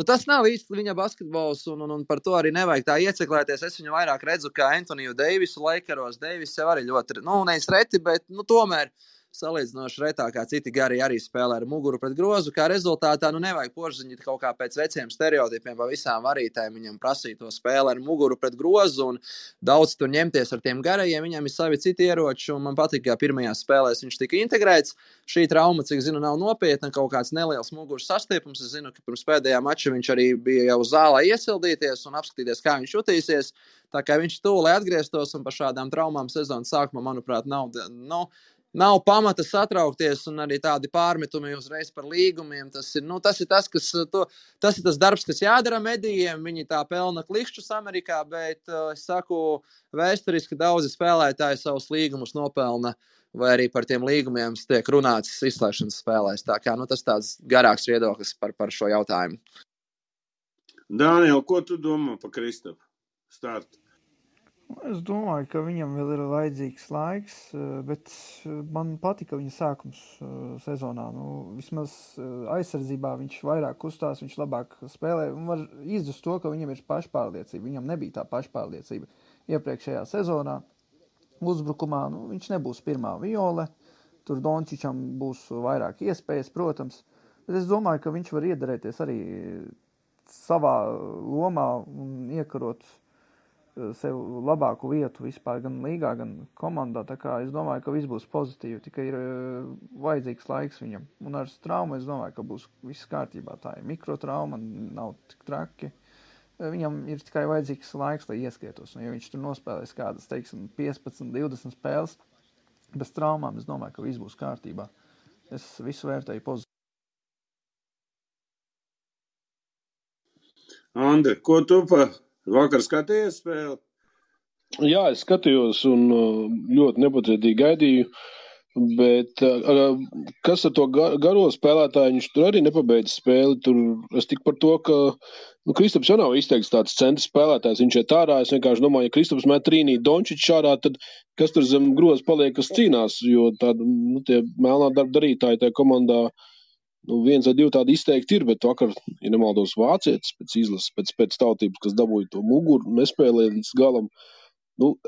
tas nav īsti viņa basketbols, un par to arī nevajag tā ieciklēties. Es viņu vairāk redzu kā Antoniju Deivisu Lakeros. Deivis jau arī ļoti, nevis reti, bet tomēr salīdzinoši retāk kā citi gari arī spēlē ar muguru pret grozu. Kā rezultātā nevajag Porziņu kaut kā pēc veciem stereotipiem pa visām varītēm viņam prasīt to spēli ar muguru pret grozu un daudz tur ņemties ar tiem garajiem. Viņam ir savi citi ieroči, un man patīk, ka pirmajās spēlēs viņš tika integrēts. Šī trauma, cik zinu, nav nopietna, kaut kāds neliels muguras sastiepums. Es zinu, ka pirms pēdējā mača viņš arī bija jau zālē iesildīties un apskatīties, kā viņš jutīsies. Tā kā viņš tūlē atgrieztos, un par šādām traumām sezonas sākumā, manuprāt, nav pamata satraukties, un arī tādi pārmetumi uzreiz par līgumiem. Tas ir tas darbs, kas jādara medijiem. Viņi tā pelna klikšķus Amerikā, bet es saku, vēsturiski daudzi spēlētāji savus līgumus nopelna, vai arī par tiem līgumiem tiek runāts izslēgšanas spēlēs. Tā kā tas tāds garāks viedoklis par šo jautājumu. Dāniel, ko tu domā par Kristapu startu? Es domāju, ka viņam vēl ir vajadzīgs laiks, bet man patika viņa sākums sezonā. Vismaz aizsardzībā viņš vairāk kustās, viņš labāk spēlē un var izjust to, ka viņam ir pašpārliecība. Viņam nebija tā pašpārliecība iepriekšējā sezonā. Uzbrukumā viņš nebūs pirmā viole, tur Dončičam būs vairāk iespējas, protams, bet es domāju, ka viņš var iederēties arī savā lomā un iekarot sev labāku vietu vispār gan līgā, gan komandā. Tā kā es domāju, ka viss būs pozitīvi, tikai ir vajadzīgs laiks viņam. Un ar traumu es domāju, ka būs viss kārtībā. Tā ir mikrotrauma, nav tik traki. Viņam ir tikai vajadzīgs laiks, lai ieskrietos. Un ja viņš tur nospēlēs kādas, 15, 20 spēles bez traumām, es domāju, ka viss būs kārtībā. Es visu vērtēju pozitīvi. Andri, ko tu vakar skatījies spēli? Jā, es skatījos un ļoti nepacietīgi gaidīju, bet kas ar to garo spēlētāju, viņš tur arī nepabeidz spēli. Tur es tik par to, ka Kristaps jau nav izteikts tāds centra spēlētājs, viņš iet ārā. Es vienkārši domāju, ja Kristaps met trīnī Dončičs ārā, tad kas tur zem groza paliek, kas cīnās, jo tādi, tie melnā darba darītāji tajā komandā, viens vai divi tādi izteikti ir, bet vakar, ja nemaldos, vācietis pēc izlases, pēc tautības, kas dabūja to muguru, nespēlēja līdz galam.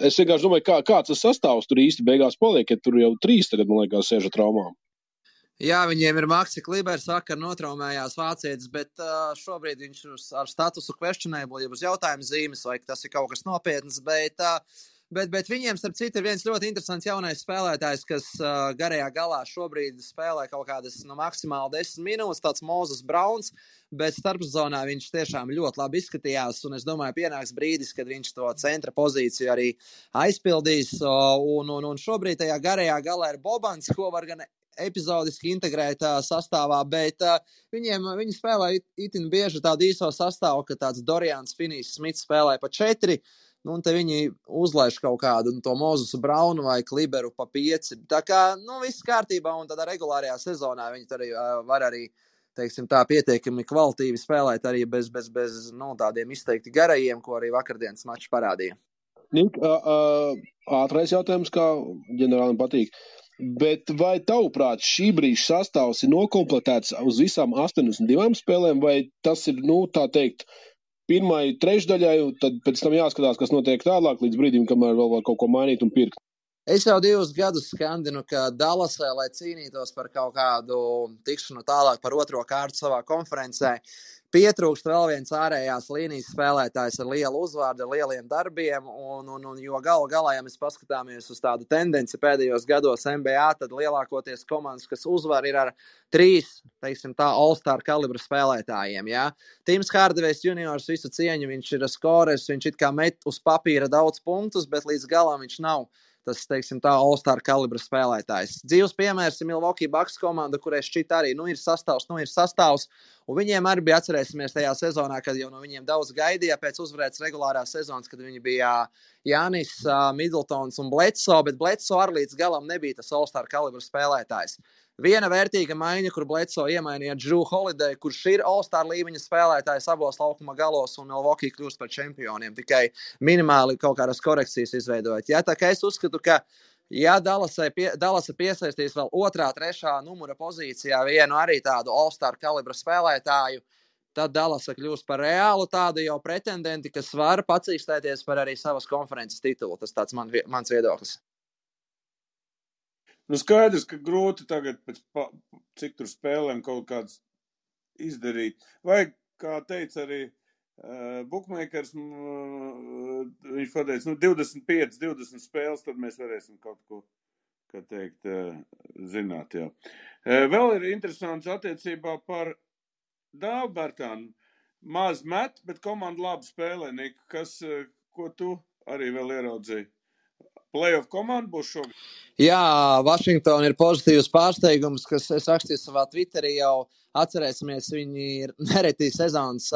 Es vienkārši domāju, kāds tas sastāvs tur īsti beigās paliek, ja tur jau 3 tagad, man liekas, sēž ar traumām. Jā, viņiem ir Maxi Klibers, vakar notraumējās vācietis, bet šobrīd viņš ar statusu questionable, ja būs jautājums zīmes, vai tas ir kaut kas nopietns, bet viņiem, starp citu, ir viens ļoti interesants jaunais spēlētājs, kas garajā galā šobrīd spēlē kaut kādas maksimāli 10 minūtes, tāds Moses Browns, bet starpzonā viņš tiešām ļoti labi izskatījās, un es domāju, pienāks brīdis, kad viņš to centra pozīciju arī aizpildīs, un šobrīd tajā garajā galā ir Bobans, ko var gan epizodiski integrēt sastāvā, bet viņi spēlē itin bieži tādu īso sastāvu, ka tāds Dorians Finney-Smits spēlē pa 4, un te viņi uzlaiž kaut kādu to Mozesu Braunu vai Kliberu pa 5. Tā kā, viss kārtībā, un tādā regulārajā sezonā viņi arī var arī, teiksim tā, pietiekami kvalitīvi spēlēt arī bez tādiem izteikti garajiem, ko arī vakardienas mačs parādīja. Nik, ātrais jautājums, kā ģenerālim patīk. Bet vai tavuprāt šī brīža sastāvs ir nokompletēts uz visām 82 spēlēm, vai tas ir, tā teikt, pirmai trešdaļai, un tad pēc tam jāskatās, kas notiek tālāk līdz brīdim, kamēr vēl var kaut ko mainīt un pirkt? Es jau 2 gadus skandinu, ka Dallasē, lai cīnītos par kaut kādu tikšanu tālāk par 2. kārtu savā konferencē, pietrūkst vēl viens ārējās līnijas spēlētājs ar lielu uzvārdu, ar lieliem darbiem, un jo galā, ja mēs paskatāmies uz tādu tendenci pēdējos gados NBA, tad lielākoties komandas, kas uzvar, ir ar 3, teiksim tā, all-star kalibra spēlētājiem, jā. Tims Hardavejs juniors visu cieņu, viņš ir skorers, viņš it kā met uz papīra daudz punktus, bet līdz galam viņš nav tas, teiksim tā, All-Star kalibra spēlētājs. Dzīves piemērs ir Milwaukee Bucks komanda, kurai šķiet arī, ir sastāvs, un viņiem arī bija, atcerēsimies tajā sezonā, kad jau no viņiem daudz gaidīja pēc uzvarētas regulārās sezonas, kad viņi bija Jānis, Middletons un Bledsoe, bet Bledsoe arī līdz galam nebija tas All-Star kalibra spēlētājs. Viena vērtīga maiņa, kur Bledsoe iemainīja Drew Holiday, kurš ir All-Star līmeņa spēlētājs abos laukuma galos, un Milwaukee kļūst par čempioniem, tikai minimāli kaut kādas korekcijas izveidojot. Ja, tā kā es uzskatu, ka ja Dallasa piesaistīs vēl 2., 3. numura pozīcijā vienu arī tādu All-Star kalibra spēlētāju, tad Dallasa kļūst par reālu tādu jau pretendenti, kas var pacīkstēties par arī savas konferences titulu. Tas tāds mans viedoklis. Nu skaidrs, ka grūti tagad pēc cik tur spēlēm kaut kāds izdarīt. Vai, kā teica arī bookmakers, viņš pateica, 25-20 spēles, tad mēs varēsim kaut ko, kā teikt, zināt, jā. Vēl ir interesants attiecībā par Dāvu Bertānu. Maz met, bet komanda labi spēlē, Nika. Ko tu arī vēl ieraudzīji? Playoff komanda būs šogad? Jā, Vašingtona ir pozitīvs pārsteigums, kas es rakstīju savā Twitterī jau. Atcerēsimies, viņi ir nereti sezonas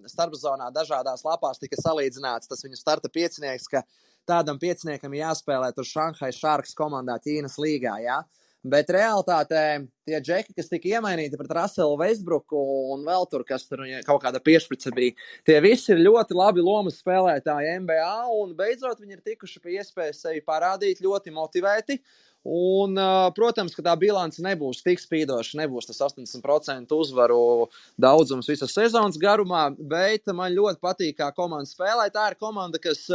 starpzonā dažādās lapās tika salīdzināts tas viņu starta piecinieks, ka tādam pieciniekam jāspēlē tur Shanghai Sharks komandā Ķīnas līgā, jā. Bet realitātē tie džeki, kas tika iemainīti pret Russellu Westbrooku un vēl tur, kas tur kaut kāda piešprice bija, tie visi ir ļoti labi lomas spēlētāji NBA un beidzot viņi ir tikuši pie iespējas sevi parādīt ļoti motivēti. Un, protams, ka tā bilance nebūs tik spīdoša, nebūs tas 80% uzvaru daudzums visas sezonas garumā, bet man ļoti patīk, kā komanda spēlē. Tā ir komanda, kas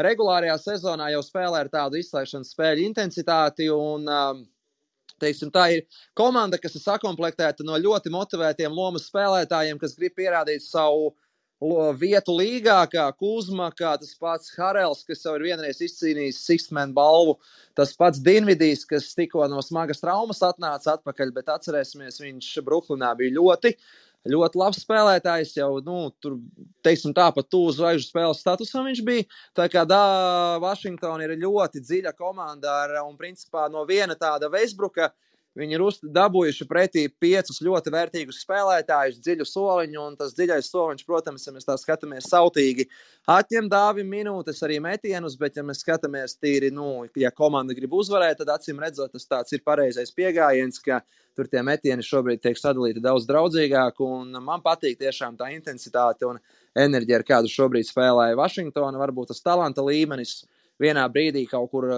regulārajā sezonā jau spēlē ar tādu izslēgšanas spēļu intensitāti un teiksim, tā ir komanda, kas ir sakomplektēta no ļoti motivētiem lomas spēlētājiem, kas grib pierādīt savu vietu līgā, kā Kuzma, kā tas pats Harels, kas jau ir vienreiz izcīnījis Sixth-man balvu, tas pats Dinvidijs, kas tikko no smagas traumas atnāca atpakaļ, bet atcerēsimies, viņš Bruklinā bija ļoti labs spēlētājs, jau, tur, teiksim tā, pat tuvu zvaigžņu spēles statusam viņš bija, tā kā Vašingtona ir ļoti dziļa komanda un principā no viena tāda Westbrooka viņi ir dabūjuši pretī 5 ļoti vērtīgus spēlētājus, dziļu soliņu, un tas dziļais soliņš, protams, ja mēs tā skatāmies sautīgi, atņem Dāvim minūtes arī metienus, bet ja mēs skatāmies tīri, ja komanda grib uzvarēt, tad acīm redzot, tas tāds ir pareizais piegājiens, ka tur tie metieni šobrīd tiek sadalīti daudz draudzīgāk, un man patīk tiešām tā intensitāte un enerģija, ar kādu šobrīd spēlēja Vašingtona, varbūt tas talanta līmenis vienā brīdī kaut kur,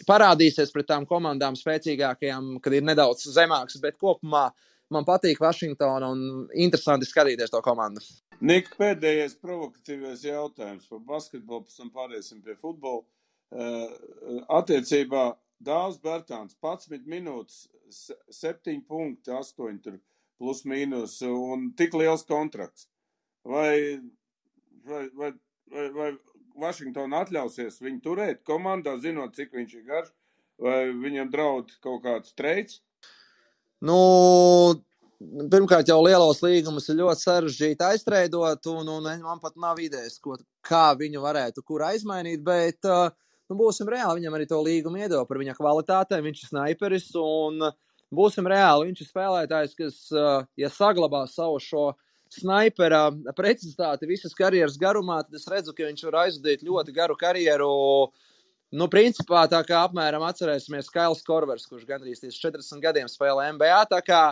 parādīsies pret tām komandām spēcīgākajām, kad ir nedaudz zemāks, bet kopumā man patīk Vašingtona un interesanti skatīties to komandu. Nik, pēdējais provokatīvais jautājums par basketbolu, pēc tam pāriesim pie futbola. Attiecībā Dāvs Bertāns 11 minūtes, 7 punkti, 8 tur plus mīnus un tik liels kontrakts. Vai Vašingtona atļausies viņu turēt komandā, zinot, cik viņš ir garš, vai viņam draud kaut kāds treids? Pirmkārt jau lielos līgumus ir ļoti sarežģīti aiztreidot, un man pat nav idejas, kā viņu varētu kur aizmainīt, bet būsim reāli, viņam arī to līgumu iedod par viņa kvalitātēm, viņš ir snaiperis, un būsim reāli, viņš ir spēlētājs, kas, ja saglabā savu šo snaipera precizitāti visas karjeras garumā, tad es redzu, ka viņš var aizvadīt ļoti garu karjeru. Principā tā kā apmēram atcerēsimies Kails Korvers, kurš gandrīz 40 gadiem spēlē NBA, tā kā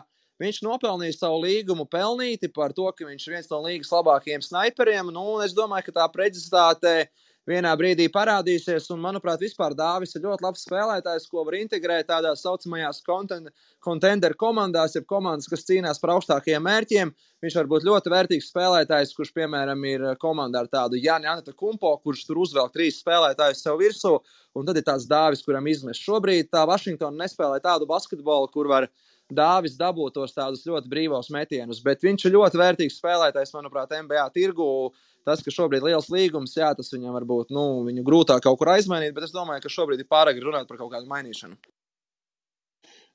viņš nopelnīja savu līgumu pelnīti par to, ka viņš ir viens no līgas labākajiem snaiperiem, un es domāju, ka tā precizitāte vienā brīdī parādīsies, un, manuprāt, vispār Dāvis ir ļoti labs spēlētājs, ko var integrēt tādās saucamajās contender komandās, jeb komandas, kas cīnās par augstākajiem mērķiem. Viņš var būt ļoti vērtīgs spēlētājs, kurš, piemēram, ir komandā ar tādu Jāni Antetokumpo, kurš tur uzvelk 3 spēlētājus sev virsū, un tad ir tāds Dāvis, kuram izmest. Šobrīd tā Vašingtona nespēlē tādu basketbolu, kur var Dāvis dabūt tos tādus ļoti brīvos metienus, bet viņš ir ļoti vērtīgs spēlētājs, manuprāt, NBA tirgu. Tas, ka šobrīd liels līgums, jā, tas viņam varbūt, viņu grūtāk kaut kur aizmainīt, bet es domāju, ka šobrīd ir pārāk runāt par kaut kādu mainīšanu.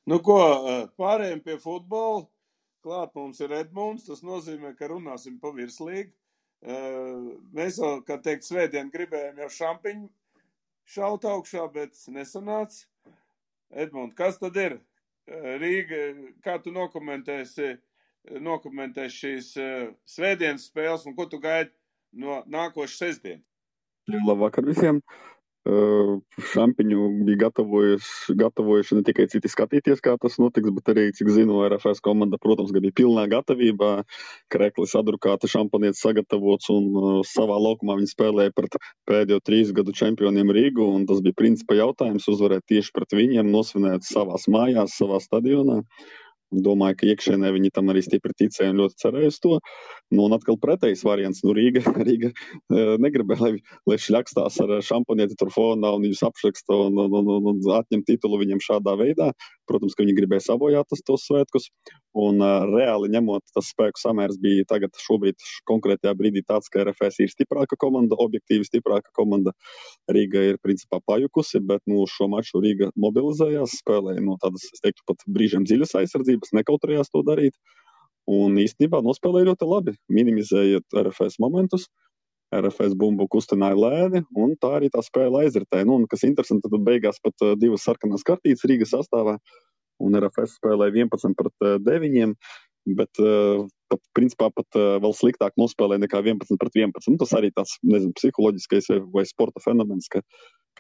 Pārējiem pie futbola. Klāt mums ir Edmunds, tas nozīmē, ka runāsim pa virslīgu. Mēs jau, kā teikt, svētdien gribējām jau šaut augšā, bet nesanāca. Edmund, kas tad ir? Rīga, kā tu nokomentēsi šīs svētdienas spēles un ko tu gaidi no nākošas sestdienas? Labvakar visiem! Šampiņu bija gatavojuši ne tikai citi skatīties, kā tas notiks, bet arī, cik zinu, RFS komanda, protams, bija pilnā gatavībā. Kreklis adrukāta, šampanietis sagatavots un savā laukumā viņi spēlēja pret pēdējo 3 gadu čempioniem Rīgu, un tas bija principa jautājums uzvarēt tieši pret viņiem, nosvinēt savās mājās, savā stadionā. Domāju, ka iekšēnē viņi tam arī stipri ticēja un ļoti cerēja uz to. Un atkal pretējs variants. Rīga negribēja, lai šļakstās ar šampanieti tur fonā un viņus apšraksta un atņem titulu viņam šādā veidā. Protams, ka viņi gribēja sabojāt tos svētkus. Un reāli ņemot, tas spēku samērs bija tagad šobrīd konkrētajā brīdī tāds, ka RFS ir stiprāka komanda, objektīvi stiprāka komanda. Rīga ir principā pajukusi, bet šo maču Rīga mobilizējās, spēlēja no tādas, es teiktu, pat brīžiem dziļas aizsardzības, nekautrējās to darīt. Un īstenībā nospēlēja ļoti labi, minimizējot RFS momentus. RFS bumbu kustināja lēni, un tā arī tā spēle aizritēja. Un, kas interesanti, tad beigās pat 2 sarkanās kartītes Rīgas sastāvā, un RFS spēlēja 11-9, bet principā pat vēl sliktāk nospēlēja nekā 11-11. Tas arī tāds, psiholoģiskais vai sporta fenomens, ka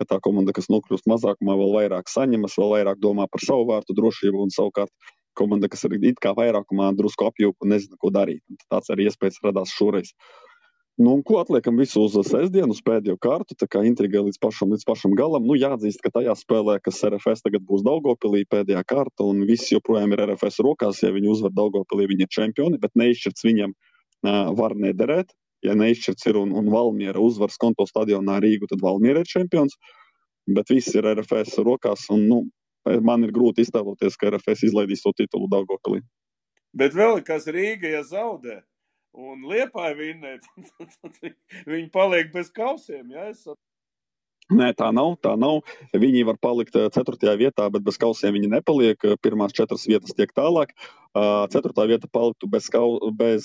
tā komanda, kas nokļūst mazākumā, vēl vairāk saņemas, vēl vairāk domā par savu vārtu drošību, un savukārt komanda, kas ir it kā vairākumā drusku apjūka un nezina, ko darīt. Un tāds arī iespējas radās šoreiz. Un ko atliekam visu uz sestdienu, uz pēdējo kārtu, tā kā intriga līdz pašam galam. Jāatzīst, ka tajā spēlē, kas RFS tagad būs Daugavpilī pēdējā kārta, un viss joprojām ir RFS rokās, ja viņi uzvar Daugavpilī, viņi ir čempioni, bet neizšķirts viņam var nederēt. Ja neizšķirts ir un Valmiera uzvar Skonto stadionā Rīgu, tad Valmiera ir čempions, bet viss ir RFS rokās, un man ir grūti iztēloties, ka RFS izlaidīs to titulu Daugavpilī. Bet vēl kas Rīga, ja zaudē un Liepāja vinnē, viņi paliek bez kausiem, ja? Nē, tā nav. Viņi var palikt 4. vietā, bet bez kausiem viņi nepaliek. Pirmās 4 vietas tiek tālāk. 4. vieta paliktu bez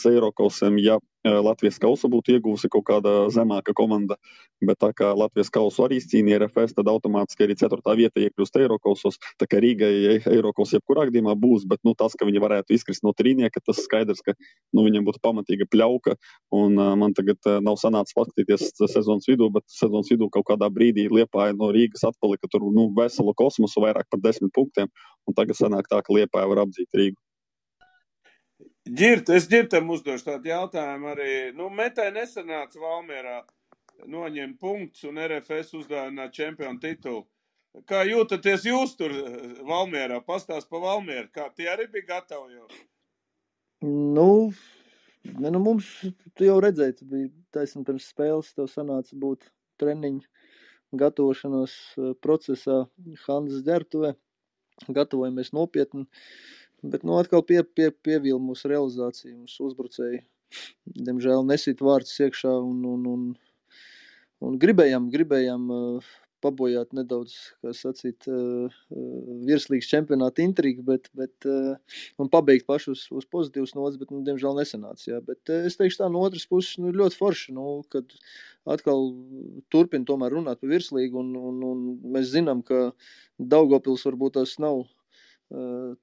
Eirokausiem, ja Latvijas kausu būtu ieguvusi kaut kāda zemāka komanda. Bet tā kā Latvijas kausu arī izcīnīja RFS, tad automātiski arī 4. vieta iekļūst Eirokausos. Tā kā Rīgai Eirokaus jebkurā gadījumā būs, bet tas, ka viņi varētu izkrist no trīnieka, tas skaidrs, ka viņiem būtu pamatīga pļauka. Un man tagad nav sanācis paskatīties sezonas vidū, bet sezonas vidū kaut kādā brīdī Liepāja no Rīgas atpalika tur veselu kosmosu, vairāk par 10 punktiem. Un tagad sanāk tā, ka Liepāja var apdzīt Rīgu. Es Ģirtam uzdošu tādu jautājumu arī. Metai nesanāca Valmierā noņemt punktus un RFS uzdāvināt čempionu titulu. Kā jūtaties jūs tur Valmierā? Pastāst pa Valmieru, kā tie arī bija gatavi jau? Mums, tu jau redzēji, tu biji taisni pirms spēles, tev sanāca būt treniņu gatavošanās procesā Hanzas ģērbtuvē. Gatavojamies nopietni. Bet atkal pievīla mūsu realizācija, mūsu uzbrucēji. Diemžēl nesit vārds iekšā un gribējām pabojāt nedaudz, kā sacīt, virslīgas čempionāta intrigu, bet un pabeigt pašu uz pozitīvas nodas, bet, diemžēl nesanāca, jā. Bet es teikšu tā, no otras puses, ļoti forši, kad atkal turpina tomēr runāt par virslīgu, un mēs zinām, ka Daugavpils varbūt tas nav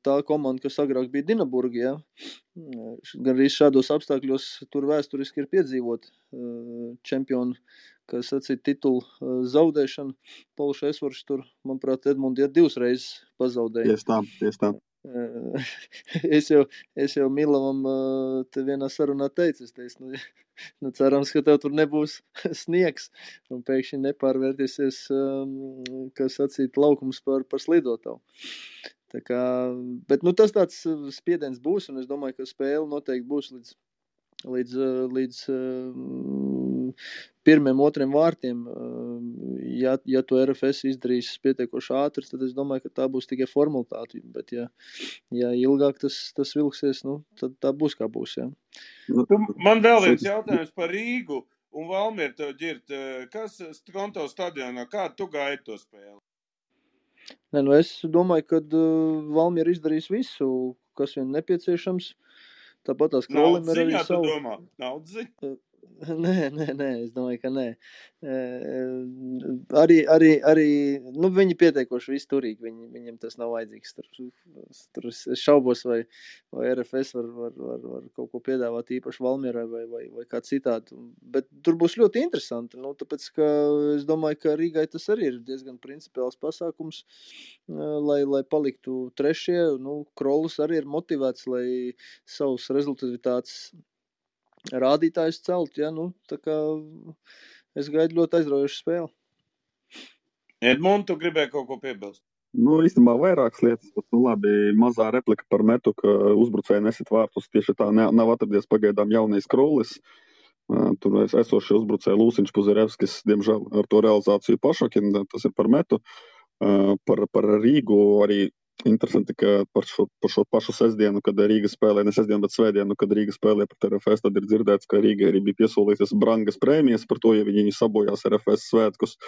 tā komanda, kas agrāk bija Dinaburga, ja? Gan arī šādos apstākļos tur vēsturiski ir piedzīvot čempionu, kā sacīt, titulu zaudēšanu. Pauls Esvarš tur, manuprāt, Edmundi 2 reizes pazaudēja. Tieši tā. Es jau Milavam te vienā sarunā teicu, cerams, ka tev tur nebūs sniegs un pēkšņi nepārvērtīsies, kā sacīt, laukums par slidotavu. Tā kā, bet tas tāds spiediens būs, un es domāju, ka spēle noteikti būs līdz 1-2 vārtiem. Ja to RFS izdarīs pietiekoši ātri, tad es domāju, ka tā būs tikai formalitāte. Bet ja ilgāk tas vilksies, tad tā būs kā būs. Ja. Man vēl viens jautājums par Rīgu un Valmieru tev, Ģirt. Kas Skonto stadionā, kā tu gaidi to spēli? Es domāju, ka Valmiera izdarīs visu, kas vien nepieciešams. Tāpat tās Krolim ir arī savu. Naudziņa? Nē, es domāju, ka nē. Arī viņi pietiekoši visi turīgi, viņiem tas nav vajadzīgs. Tur es šaubos, vai RFS var kaut ko piedāvāt īpaši Valmierai vai kā citādi. Bet tur būs ļoti interesanti, tāpēc, ka es domāju, ka Rīgai tas arī ir diezgan principiāls pasākums, lai paliktu trešie. Krolus arī ir motivēts, lai savus rezultatīvitātes rādītājus celt, tā kā es gaidu ļoti aizraujošu spēli. Edmund, tu gribēji kaut ko piebilst? Īstenībā vairākas lietas, bet labi, mazā replika par metu, ka uzbrucēji nesit vārtus, tieši tā nav atradies pagaidām jaunais Krolis. Tur esošie uzbrucēji Lūsiņš, Puzerevskis, diemžēl ar to realizāciju pašokina, tas ir par metu. Par Rīgu arī interesanti, ka par šo pašu sestdienu, kad Rīga spēlē, ne sestdienu, bet svētdienu, kad Rīga spēlē pret RFS, tad ir dzirdēts, ka Rīga arī bija piesolījusies brangas prēmijas par to, ja viņi sabojās RFS svētkus.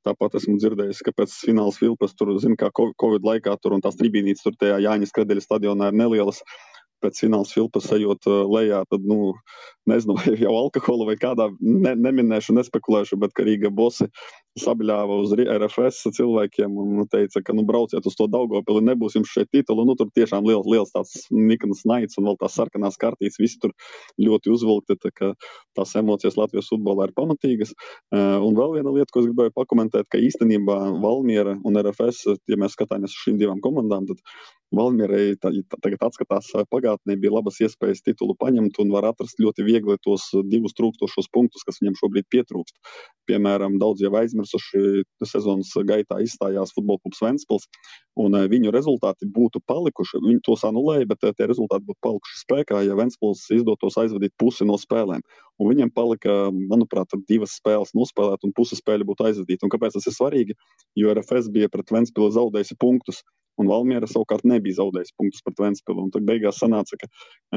Tāpat esmu dzirdējis, ka pēc fināls Vilpas tur, kā Covid laikā tur un tās tribīnītes tur tajā Jāņas Kredeļa stadionā ir nelielas. Pēc fināls Vilpas ejot lejā, tad, nezinu, vai jau alkohola vai kādā, neminēšu, nespekulēšu, bet ka Rīga bosi sabļāva uz RFS cilvēkiem un teica, ka, brauciet uz to Daugavpili, nebūs jums šeit titulu. Tur tiešām liels tāds niknas naids un vēl tās sarkanās kartītes, visi tur ļoti uzvilkti, tā ka tās emocijas Latvijas futbolā ir pamatīgas. Un vēl viena lieta, ko es gribēju pakomentēt, ka īstenībā Valmiera un RFS, ja mēs skatāmies uz šīm divām komandām, tad Valmierai tagad atskatās pagātnē, bija labas iespējas titulu paņemt un var atrast ļoti viegli tos divus trūkstošos punktus, kas viņam šobrīd pietrūkst. Piemēram, daudz jau aizmirsuši sezonas gaitā izstājās Futbola klubs Ventspils, un viņu rezultāti būtu palikuši, viņi tos anulēja, bet tie rezultāti būtu palikuši spēkā, ja Ventspils izdotos aizvadīt pusi no spēlēm. Un viņiem palika, manuprāt, 2 spēles nospēlēt un pusi spēļu būtu aizvadīt. Un kāpēc tas ir svarīgi? Jo RFS bija pret Ventspili zaudējusi punktus, un Valmiera savukārt nebija zaudējis punktus pret Ventspili. Un tad beigās sanāca, ka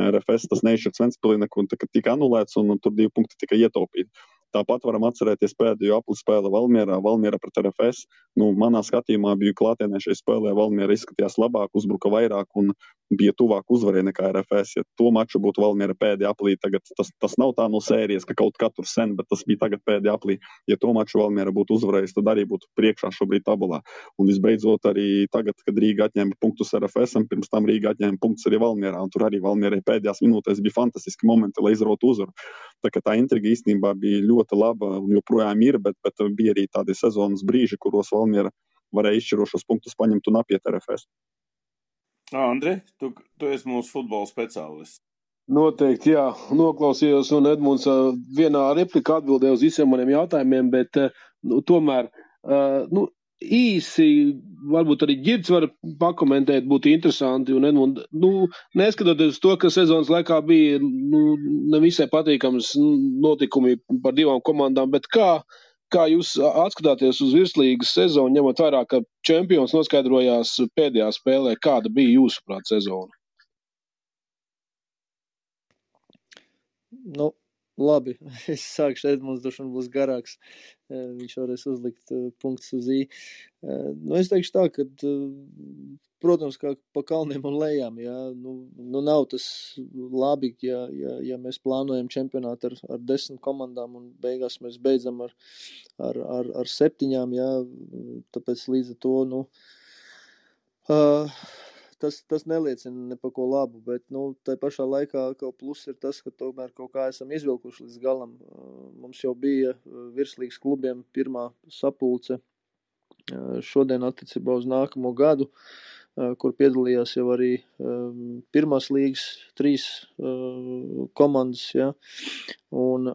RFS tas neizšķirts Ventspilī, un tika anulēts, un tur 2 punkti tika ietaupīti. Tāpat varam atcerēties pēdējo apli spēle Valmiera pret RFS. Manā skatījumā biju klātienē šai spēlē, Valmiera izskatījās labāk, uzbruka vairāk un bija tuvāk uzvarē nekā RFS. Ja to maču būtu Valmiera pēdējā aplī, tagad tas nav tā no sērijas, ka kaut katru sen, bet tas bija tagad pēdējā aplī. Ja to maču Valmiera būtu uzvarējis, tad arī būtu priekšā šobrīd tabulā. Un visbeidzot arī tagad, kad Rīga atņēma punktus RFS, pirms tam Rīga atņēma punktus arī Valmierā, un tur arī Valmierai pēdējās minūtēs bija fantastiski momenti, lai izrautu uzvaru. Tā intriga īstenībā bija ļoti laba un joprojām ir, bet bija arī tādi sezonas brīži, kuros Valmiera varēja izšķirošos punktus paņemt un apiet RFS. Andri, tu esi mūsu futbola speciālists. Noteikti, jā. Noklausījos, un Edmunds vienā replikā atbildēja uz visiem maniem jautājumiem, bet tomēr īsi, varbūt arī Ģirds var pakomentēt, būtu interesanti, un Edmund, neskatoties uz to, ka sezonas laikā bija nevisai patīkams notikumi par 2 komandām, bet kā jūs atskatāties uz virslīgas sezonu, ņemot vērā, ka čempions noskaidrojās pēdējā spēlē, kāda bija jūsuprāt sezona? Labi, es sākšu, Edmunds droši vien būs garāks, viņš varēs uzlikt punktus uz I. Es teikšu tā, ka, protams, kā pa kalniem un lejām, jā, nav tas labi, ja mēs plānojam čempionātu ar 10 komandām un beigās mēs beidzam ar 7, jā, tāpēc līdz ar to, Tas neliecina ne par ko labu, bet tai pašā laikā kaut plus ir tas, ka tomēr kaut kā esam izvilkuši līdz galam. Mums jau bija virslīgas klubiem pirmā sapulce šodien attiecībā uz nākamo gadu, kur piedalījās jau arī pirmās līgas 3 komandas, ja, un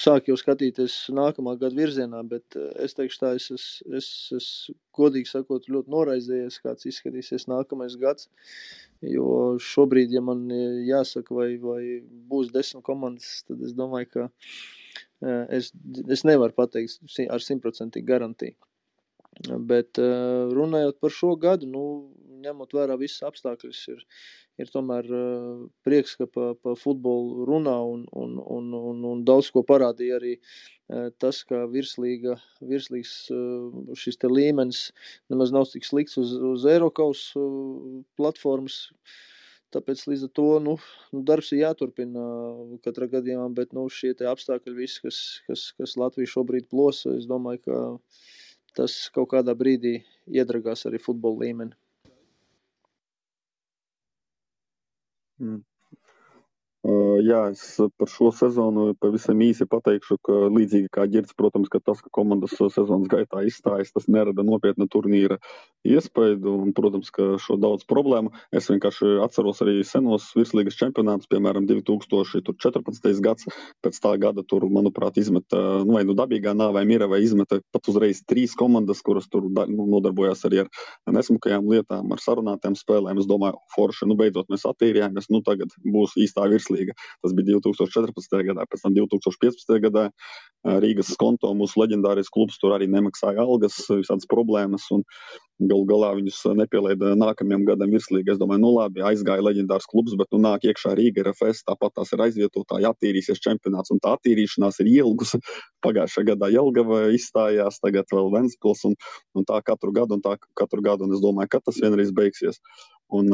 sāk jau skatīties nākamā gada virzienā, bet es teikšu tā, es godīgi sakot ļoti noraizējies, kāds izskatīsies nākamais gads, jo šobrīd, ja man jāsaka, vai būs 10 komandas, tad es domāju, ka es nevaru pateikt ar 100% garantiju. Bet runājot par šo gadu, ņemot vērā visas apstākļus, ir tomēr prieks, ka pa futbolu runā un daudz ko parādīja arī tas, ka virslīgas šis te līmenis nemaz nav tik slikts uz Eirokaus platformas. tāpēc līdz ar to, darbs ir jāturpina katrā gadījumā, bet, šie te apstākļi visi, kas Latviju šobrīd plosa, es domāju, ka tas kaut kādā brīdī iedragās arī futbola līmeni. Jā, es par šo sezonu pavisam īsi pateikšu, ka līdzīgi kā Ģirds, protams, ka tas, ka komandas sezonas gaitā izstājas, tas nerada nopietna turnīra iespaidu un, protams, ka šo daudz problēmu. Es vienkārši atceros arī senos virslīgas čempionātus, piemēram, 2014. gads, pēc tā gada tur, manuprāt, izmeta, vai dabīgā nāvē mira vai izmeta pat uzreiz 3 komandas, kuras tur nodarbojās arī ar nesmukajām lietām, ar sarunātām spēlēm. Es domāju, forši, beidzot mēs attīrījāmies, tagad būs īstā virslīga. Tas bija 2014. gadā, pēc tam 2015. gadā Rīgas Skonto, mūsu leģendārais klubs, tur arī nemaksāja algas, visādas problēmas un galu galā viņus nepielaida nākamajam gadam virslīgi. Es domāju, labi, aizgāja leģendārs klubs, bet nāk iekšā Rīga RFS, tāpat tās ir aizvietotāji, attīrīsies čempionāts un tā attīrīšanās ir ielgusi. Pagājušā gadā Jelgava izstājās, tagad vēl Ventspils un tā katru gadu, un es domāju, ka tas vienreiz beigsies. Un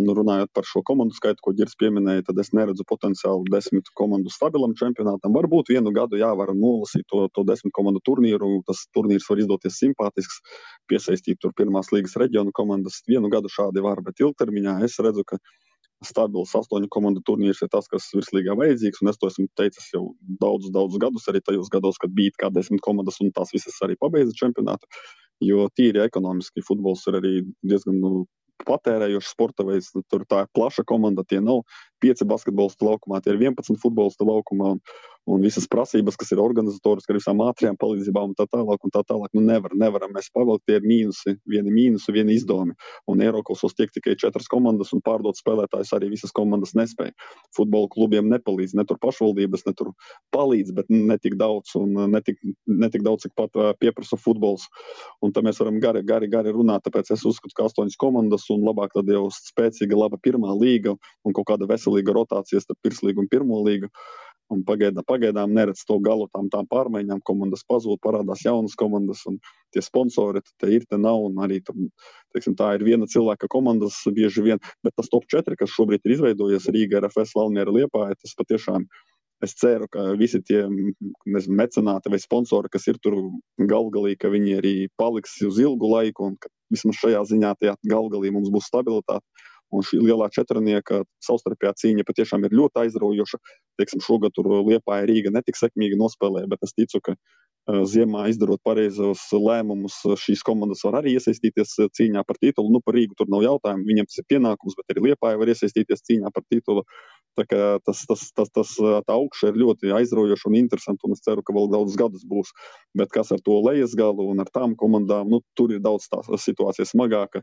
runājot par šo komandu skaitu, ko Ģirds pieminēja, tad es neredzu potenciālu 10 komandu stabilam čempionātam. Varbūt vienu gadu var nolasīt to 10 komandu turnīru. Tas turnīrs var izdoties simpātisks, piesaistīt tur pirmās līgas reģionu komandas. Vienu gadu šādi var, bet ilgtermiņā es redzu, ka stabils 8 komandu turnīrs ir tas, kas virslīgā vajadzīgs, un es to esmu teicis jau daudzus gadus, arī tajos gados, kad bija kā 10 komandas, un tās visas arī pabeidza čempionātu, jo tīri ekonomiski futbols ir arī diezgan patērējošs sporta veids, tur tā ir plaša komanda, tie nav 5 basketbolisti laukumā, tie ir 11 futbolisti laukumā, un visas prasības, kas ir organizatoriski ar visām ātrajām palīdzībām un tā tālāk, nevaram mēs pavilkt, tie ir vieni izdevumi, un Eirokasos tiek tikai 4 komandas, un pārdot spēlētājus arī visas komandas nespēja. Futbola klubiem nepalīdz, ne tur pašvaldības, ne tur palīdz, bet ne tik daudz, un ne tik daudz, cik pat pieprasa futbols, un tā mēs varam gari runāt, tāpēc es uzskatu, ka 8 komandas, un labāk tad jau spēcīga, laba pirmā līga, un kaut kāda veselīga rotācija starp virslīgu un pirmo līgu. Un pagaidām neredz to galu tām pārmaiņām, komandas pazūd, parādās jaunas komandas, un tie sponsori te ir, te nav, un arī tā ir viena cilvēka komandas bieži vien, bet tas top 4, kas šobrīd ir izveidojies Rīga, RFS, Valmiera, Liepāja, tas patiešām, es ceru, ka visi tie mecenāti vai sponsori, kas ir tur galgalī, ka viņi arī paliks uz ilgu laiku, un ka vismaz šajā ziņā tajā galgalī mums būs stabilitāte. Un šī lielā četrnieka savstarpējā cīņa patiešām ir ļoti aizraujoša. Teiksim, šogad tur Liepāja Rīga netik sekmīgi nospēlēja, bet es ticu, ka ziemā izdarot pareizos lēmumus, šīs komandas var arī iesaistīties cīņā par titulu. Par Rīgu tur nav jautājumu, viņiem tas ir pienākums, bet arī Liepāja var iesaistīties cīņā par titulu. Tā kā tā augša ir ļoti aizraujoša un interesanta, un es ceru, ka vēl daudz gadus būs. Bet kas ar to lejas galu un ar tām komandām, tur ir daudz tā situācija smagāka,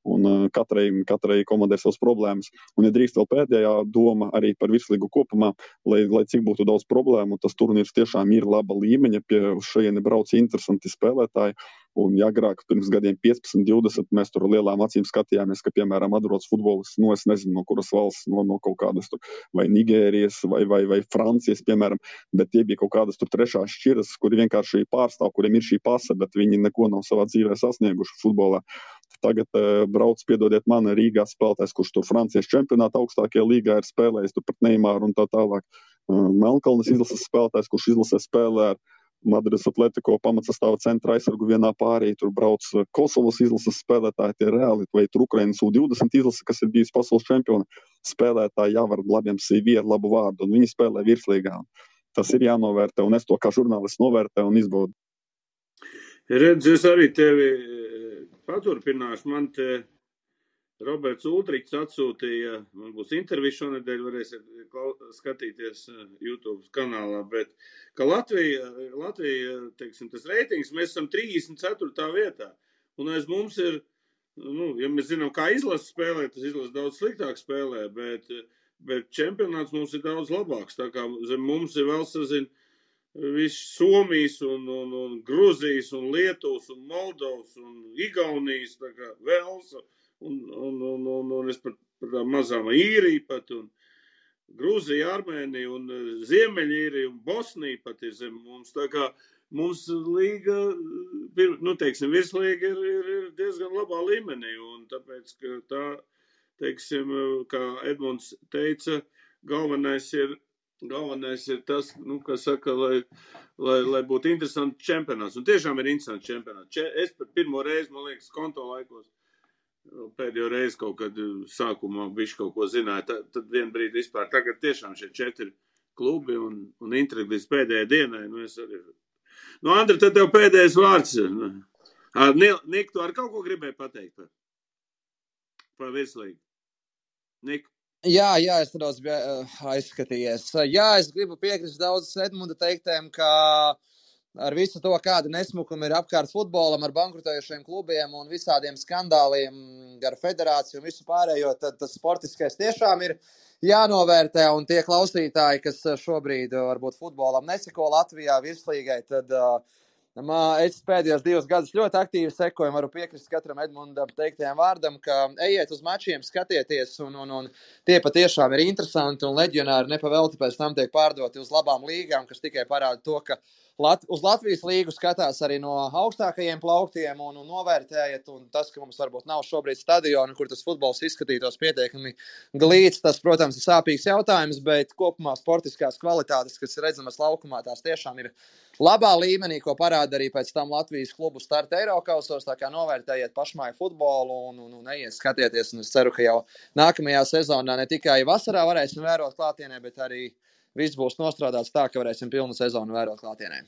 un katrai komandai savas problēmas. Un, ja drīkst vēl pēdējā doma arī par virslīgu kopumā, lai cik būtu daudz problēmu, tas turnīrs tiešām ir laba līmeņa, pie šajieni brauc interesanti spēlētāji. Un agrāk, pirms gadiem 15, 20, mēs tur lielām acīm skatījāmies, ka, piemēram, atbrauc futbolists, es nezinu, no kuras valsts, no kaut kādas tur, vai Nigērijas, vai Francijas, piemēram, bet tie bija kaut kādas tur trešās šķiras, kuri vienkārši pārstāv, kuriem ir šī pase, bet viņi neko nav savā dzīvē sasnieguši futbolā. Tagad brauc, piedodiet man, Rīgā spēlētājs, kurš tur Francijas čempionāta augstākajā līgā ir spēlējis, tur pret Neimaru un tā tālāk. Melnkalnes izlases spēlētājs, kurš izlasē spēlē ar Madrides Atletico pamatsastāva centra aizsargu vienā pārī, tur brauc Kosovas izlases spēlētāji, tie reāli, vai tur Ukrainas U20 izlase, kas ir bijis pasaules čempiona, spēlētāji jāvar labiem CV ar labu vārdu, un viņi spēlē virslīgā. Tas ir jānovērtē, un es to kā žurnālists novērtē un izbaudu. Redz, es arī tevi paturpināšu, man te Roberts Ultriks atsūtīja, man būs intervija šonedēļ, varēsiet skatīties YouTube kanālā, bet ka Latvija, teiksim, tas reitings, mēs esam 34. vietā, un aiz mums ir, ja mēs zinām, kā izlase spēlē, tas izlase daudz sliktāk spēlē, bet čempionāts mums ir daudz labāks, tā kā zem mums ir vēl sazin viss Somijas un Gruzijas un Lietuvas un Moldovas un Igaunijas, tā kā Velsa, un es par tām mazām Īriju pat, un Grūzija, Armēnija, un Ziemeļīrija, un Bosnija pat ir zem mums, tā kā mums līga, teiksim, virslīga ir diezgan labā līmenī, un tāpēc, ka teiksim, kā Edmunds teica, galvenais ir tas, kā saka, lai būtu interesants čempionāts. Un tiešām ir interesants čempionāts. Es par pirmo reizi, man liekas, konto laikos pēdējo reizi kaut kad sākumā bišķi kaut ko zināju. Tad vien brīdi vispār. Tagad tiešām šie 4 klubi un intriga līdz pēdējai dienai. Es arī. Andri, tad tev pēdējais vārds. Nik, tu ar kaut ko gribēji pateikt par virslīgu? Nik? Jā, es nedaudz biju aizskatījies. Jā, es gribu piekrist daudz Edmunda teiktēm, ka ar visu to, kāda nesmukuma ir apkārt futbolam, ar bankrutējušiem klubiem un visādiem skandāliem ar federāciju un visu pārējo, tad tas sportiskais tiešām ir jānovērtē, un tie klausītāji, kas šobrīd varbūt futbolam neseko Latvijā virslīgai, tad es pēdējos 2 gadus ļoti aktīvi sekoju, varu piekrist katram Edmundam teiktajam vārdam, ka ejiet uz mačiem, skatieties, un tie patiešām ir interesanti, un leģionāri nepavelti pēc tam tiek pārdoti uz labām līgām, kas tikai parāda to, ka uz Latvijas līgu skatās arī no augstākajiem plauktiem un novērtējiet, un tas, ka mums varbūt nav šobrīd stadionu, kur tas futbols izskatītos pietiekami glīts, tas, protams, ir sāpīgs jautājums, bet kopumā sportiskās kvalitātes, kas ir redzamas laukumā, tās tiešām ir labā līmenī, ko parāda arī pēc tam Latvijas klubu starta Eirokausos, tā kā novērtējiet pašmāju futbolu un ejiet skatieties, un es ceru, ka jau nākamajā sezonā ne tikai vasarā varēsim vērot klātienē, bet arī viss būs nostrādāts tā, ka varēsim pilnu sezonu vērot klātienē.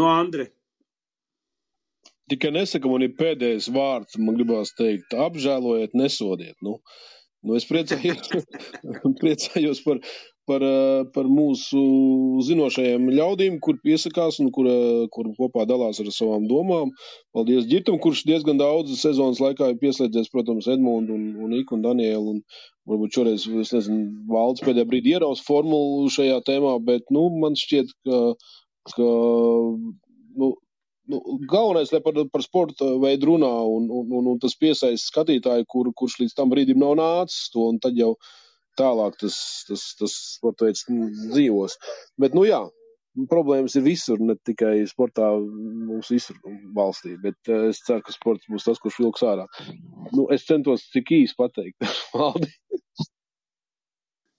Andri. Tikai nesaka, man ir pēdējais vārds, man gribās teikt, apžēlojiet, nesodiet. Es priecājos par mūsu zinošajiem ļaudīm, kur piesakās un kur kopā dalās ar savām domām. Paldies Ģirtam, kurš diezgan daudz sezonas laikā ir pieslēdzies, protams, Edmundu un Iku un Danielu, un varbūt šoreiz, es nezinu, Valds pēdējā brīdī ieraus formulu šajā tēmā, bet, man šķiet, ka galvenais, lai par sporta veidu runā un tas piesaist skatītāju, kurš līdz tam brīdim nav nācis to, un tad jau tālāk tas sporta veids dzīvos. Bet, problēmas ir visur, ne tikai sportā mums visur valstī, bet es ceru, ka sports būs tas, kurš vilks ārā. Es centos cik īsi pateikt, Valdi.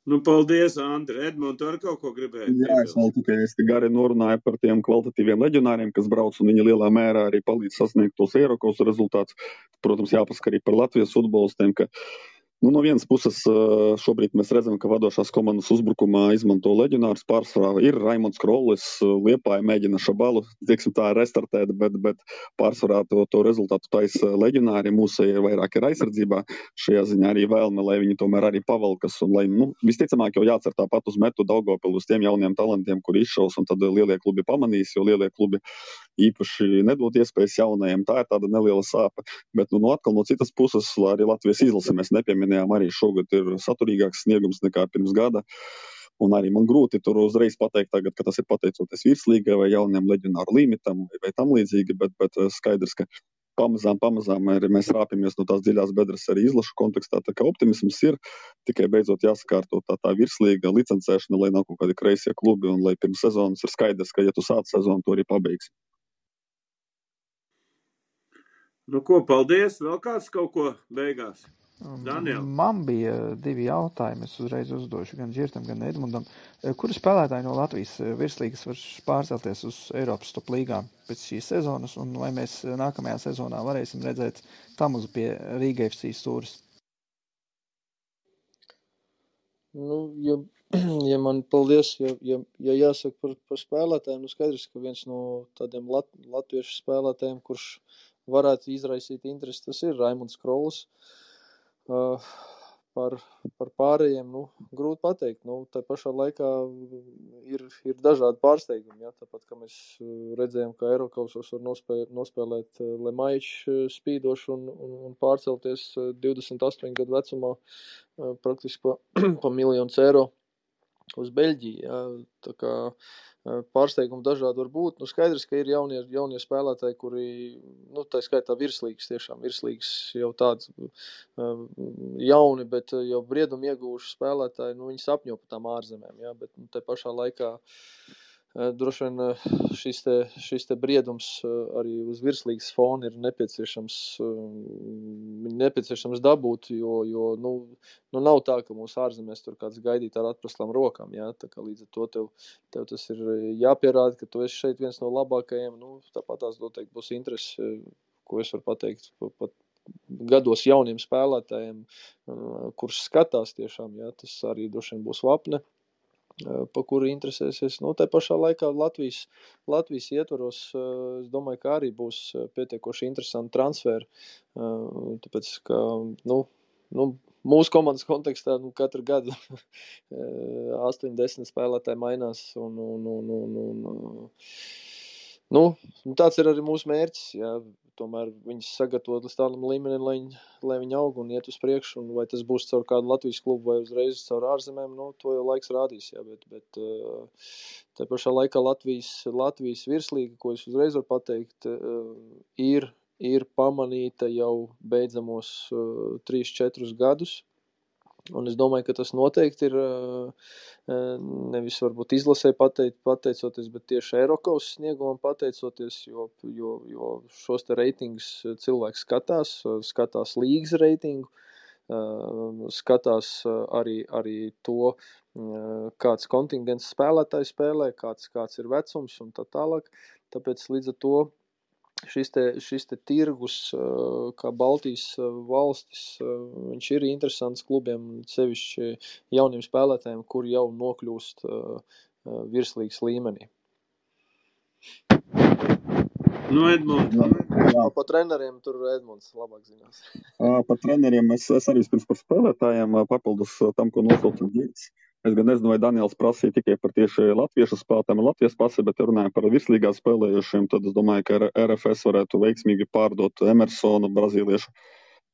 Paldies, Andri. Edmund, tu ar kaut ko gribēji? Jā, es vēl tikai gari norunāju par tiem kvalitatīviem leģionāriem, kas brauc, un viņi lielā mērā arī palīdz sasniegt tos Eirokausu rezultātus. Protams, jāpasaka arī par Latvijas futbolistiem, ka no vienas puses šobrīd mēs redzam, ka vadošās komandas uzbrukumā izmanto leģionārus pārsvarā. Ir Raimonds Krollis, Liepāja mēģina Šabalu, tā restartēt, bet pārsvarā to rezultātu taisa leģionāri. Mūsu ir vairāk ir aizsardzībā. Šajā ziņā arī vēlme, lai viņi tomēr arī pavalkas. Un lai, visticamāk jau jācer tāpat uz metu Daugavpilu, uz tiem jauniem talantiem, kur izšaus, un tad lielie klubi pamanīs, jo lielie klubi īpaši nedod iespējas jaunajiem. Tā ir tāda neliela sāpe. Bet atkal no citas puses, arī Latvijas izlase mēs nepieminējām, arī šogad ir saturīgāks sniegums nekā pirms gada. Un arī man grūti tur uzreiz pateikt tagad, ka tas ir pateicoties virslīgai vai jauniem leģionāru limitam vai tam līdzīgi, bet skaidrs, ka pamazām mēs rāpjamies no tās dziļās bedres arī izlašu kontekstā, tā kā optimisms ir, tikai beidzot jāsakārto tā virslīga licencēšana, lai nav kaut kādi kreisie klubi un lai pirms sezonas ir skaidrs, ka ja tu sāc sezonu, to arī pabeigsi. Paldies. Vēl kāds kaut ko beigās? Daniel. Man bija 2 jautājumi. Es uzreiz uzdošu gan Ģirtam, gan Edmundam. Kuri spēlētāji no Latvijas virslīgas var pārcelties uz Eiropas top līgām pēc šīs sezonas, un vai mēs nākamajā sezonā varēsim redzēt Tamuzu pie Rīga FC stūres? Ja man paldies, ja jāsaka par spēlētājiem, skaidrs, ka viens no tādiem latviešu spēlētājiem, kurš varētu izraisīt interesi, tas ir Raimonds Krollis. Par pārējiem, grūti pateikt. Tā pašā laikā ir dažādi pārsteigumi, tāpat, ka mēs redzējām, ka Eirokausos var nospēlēt Lemaičs spīdošu un pārcelties 28 gadu vecumā praktiski pa miljonus eiro uz Beļģiju. Tā kā pārsteigumi dažādi var būt. Skaidrs, ka ir jaunie spēlētāji, kuri, tā skaitā virslīgas jau tādi jauni, bet jau briedumu ieguvuši spēlētāji, viņi sapņo par tām ārzemēm, bet te pašā laikā droši vien šis te briedums arī uz virslīgas fona ir nepieciešams dabūt, jo nav tā, ka mūsu ārzemēs tur kāds gaidīt ar atprastām rokām, jā, tā kā līdz ar to tev tas ir jāpierāda, ka tu esi šeit viens no labākajiem, tāpat tās noteikti būs interesi, ko es varu pateikt pat gados jauniem spēlētājiem, kurš skatās tiešām, jā, tas arī droši vien būs vapne, pa kuru interesēsies. Tā pašā laikā Latvijas ietvaros, es domāju, ka arī būs pietiekoši interesanti transferi, tāpēc, ka, mūsu komandas kontekstā, katru gadu 8-10 spēlētāji mainās tāds ir arī mūsu mērķis, jā. Tomēr viņus sagatavot līdz tādam līmenim, lai viņi aug un iet uz priekšu, un vai tas būs caur kādu Latvijas klubu vai uzreiz caur ārzemēm, to jau laiks rādīs, jā, bet tā pašā laikā Latvijas virslīga, ko es uzreiz varu pateikt, ir pamanīta jau beidzamos 3-4 gadus, un es domāju, ka tas noteikti ir nevis varbūt izlasē pateicoties, bet tieši Eirokaus sniegumam pateicoties, jo šos te reitingus cilvēks skatās līgas reitingu, skatās arī to, kāds kontingents spēlētāji spēlē, kāds ir vecums un tā tālāk. Tāpēc līdz ar to šis te tirgus, kā Baltijas valstis, viņš ir interesants klubiem, sevišķi jauniem spēlētājiem, kuri jau nokļūst virslīgas līmenī. Edmunds. Pa treneriem tur Edmunds labāk zinās. Par treneriem es arī vispirms par spēlētājiem papildus tam, ko nosauca Girts. Es gan nezinu, vai Daniels prasīja tikai par tieši latviešu spēlētājiem ar Latvijas pasi, bet ja runājam par virslīgā spēlējušiem, tad es domāju, ka RFS varētu veiksmīgi pārdot Emersonu, brazīliešu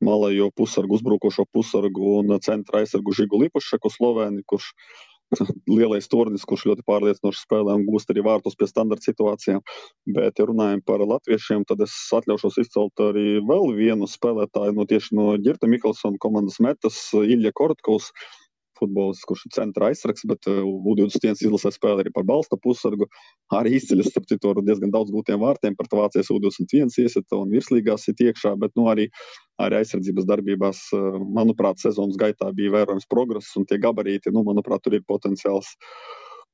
malējo pusargu, uzbrukošo pusargu un centra aizsargu Žigu Lipušaku Slovēni, kurš lielais tornis, kurš ļoti pārliecinoši spēlē un gūst arī vārtus pie standarta situācijām. Bet, ja runājam par latviešiem, tad es atļaušos izcelt arī vēl vienu spēlētāju tieši no Girta Mikelsona komandas metas, Ilja Korotkovs, futbolists, kurš ir centra aizsargs, bet U21 izlasē spēlē arī par balsta pusargu. Arī izceļas, starp citu, ar diezgan daudz gūtiem vārtiem, par Vācijas U21 iesita un virslīgās ir iekšā, bet arī aizsardzības darbībās, manuprāt, sezonas gaitā bija vērojams progress un tie gabarīti, manuprāt, tur ir potenciāls.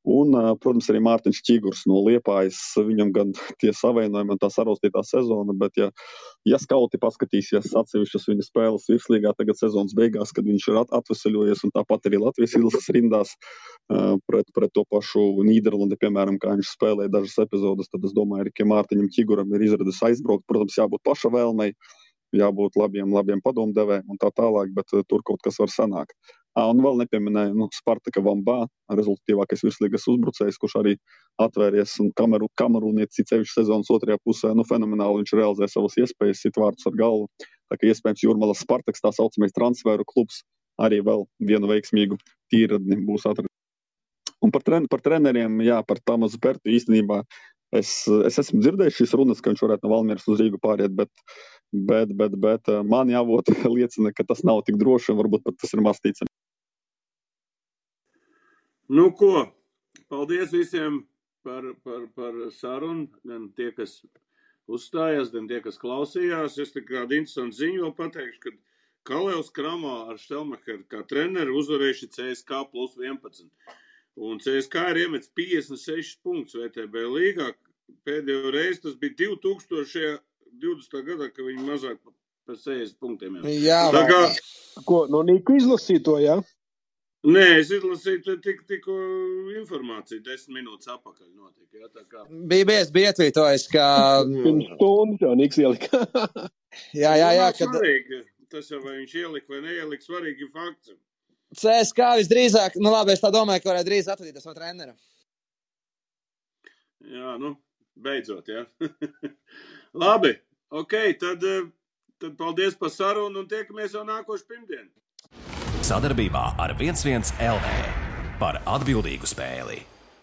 Un, protams, arī Mārtiņš Čigurs no Liepājas, viņam gan tie savainojumi un tā saraustītā sezona, bet ja skauti paskatīsies atsevišķas viņa spēles virslīgā tagad sezonas beigās, kad viņš ir atveseļojies un tāpat arī Latvijas izlases rindās pret to pašu Nīderlandi, piemēram, kā viņš spēlēja dažas epizodes, tad es domāju, ka Mārtiņam Čiguram ir izredzes aizbraukt, protams, jābūt paša vēlmei, jābūt labiem padomdevējiem un tā tālāk, bet tur kaut kas var sanākt. Un vēl nepieminēju Spartaka Vambā, rezultatīvākais virslīgas uzbrucējs, kurš arī atvēries un kamerūnietis cevišķi sezonas otrajā pusē, fenomenāli viņš realizē savas iespējas, sit vārtus ar galvu. Tā kā iespējams Jūrmalas Spartaks, tā saucamais transferu klubs, arī vēl vienu veiksmīgu tīradni būs atradis. Un par treneriem, par Tamasu Pertu īstenībā es esmu dzirdējis šīs runas, ka viņš varētu no Valmieras uz Rīgu pāriet, bet man jāvot liecina, ka tas nav tik droši un varbūt pat tas ir maz ticami. Ko? Paldies visiem par sarunu, gan tie, kas uzstājās, gan tie, kas klausījās. Es tā kādu interesantu ziņu vēl pateikšu, ka Kalevs Kramā ar Štelmacheru kā treneri uzvarējuši CSK plus 11. Un CSK ir iemets 56 punktus VTB līgā. Pēdējo reizi tas bija 2020. gadā, ka viņi mazāk par 60 punktiem. Jā, Ko, no Niku izlasīja to, jā? Nē, es izlasīju tikko informāciju, 10 minūtes apakaļ notika. Jā, tā kā... Bija ietvītojis, ka... Pirms stundas jau Niks ielika. jā. Svarīgi, tas jau vai viņš ielika vai neielika, svarīgi fakts. CSK visdrīzāk, labi, es tā domāju, ka varētu drīz atvadīties no trenera. Jā, beidzot, jā. Labi, tad paldies par sarunu un tiekamies jau nākošu pirmdienu. Sadarbībā ar 11 LV par atbildīgu spēli.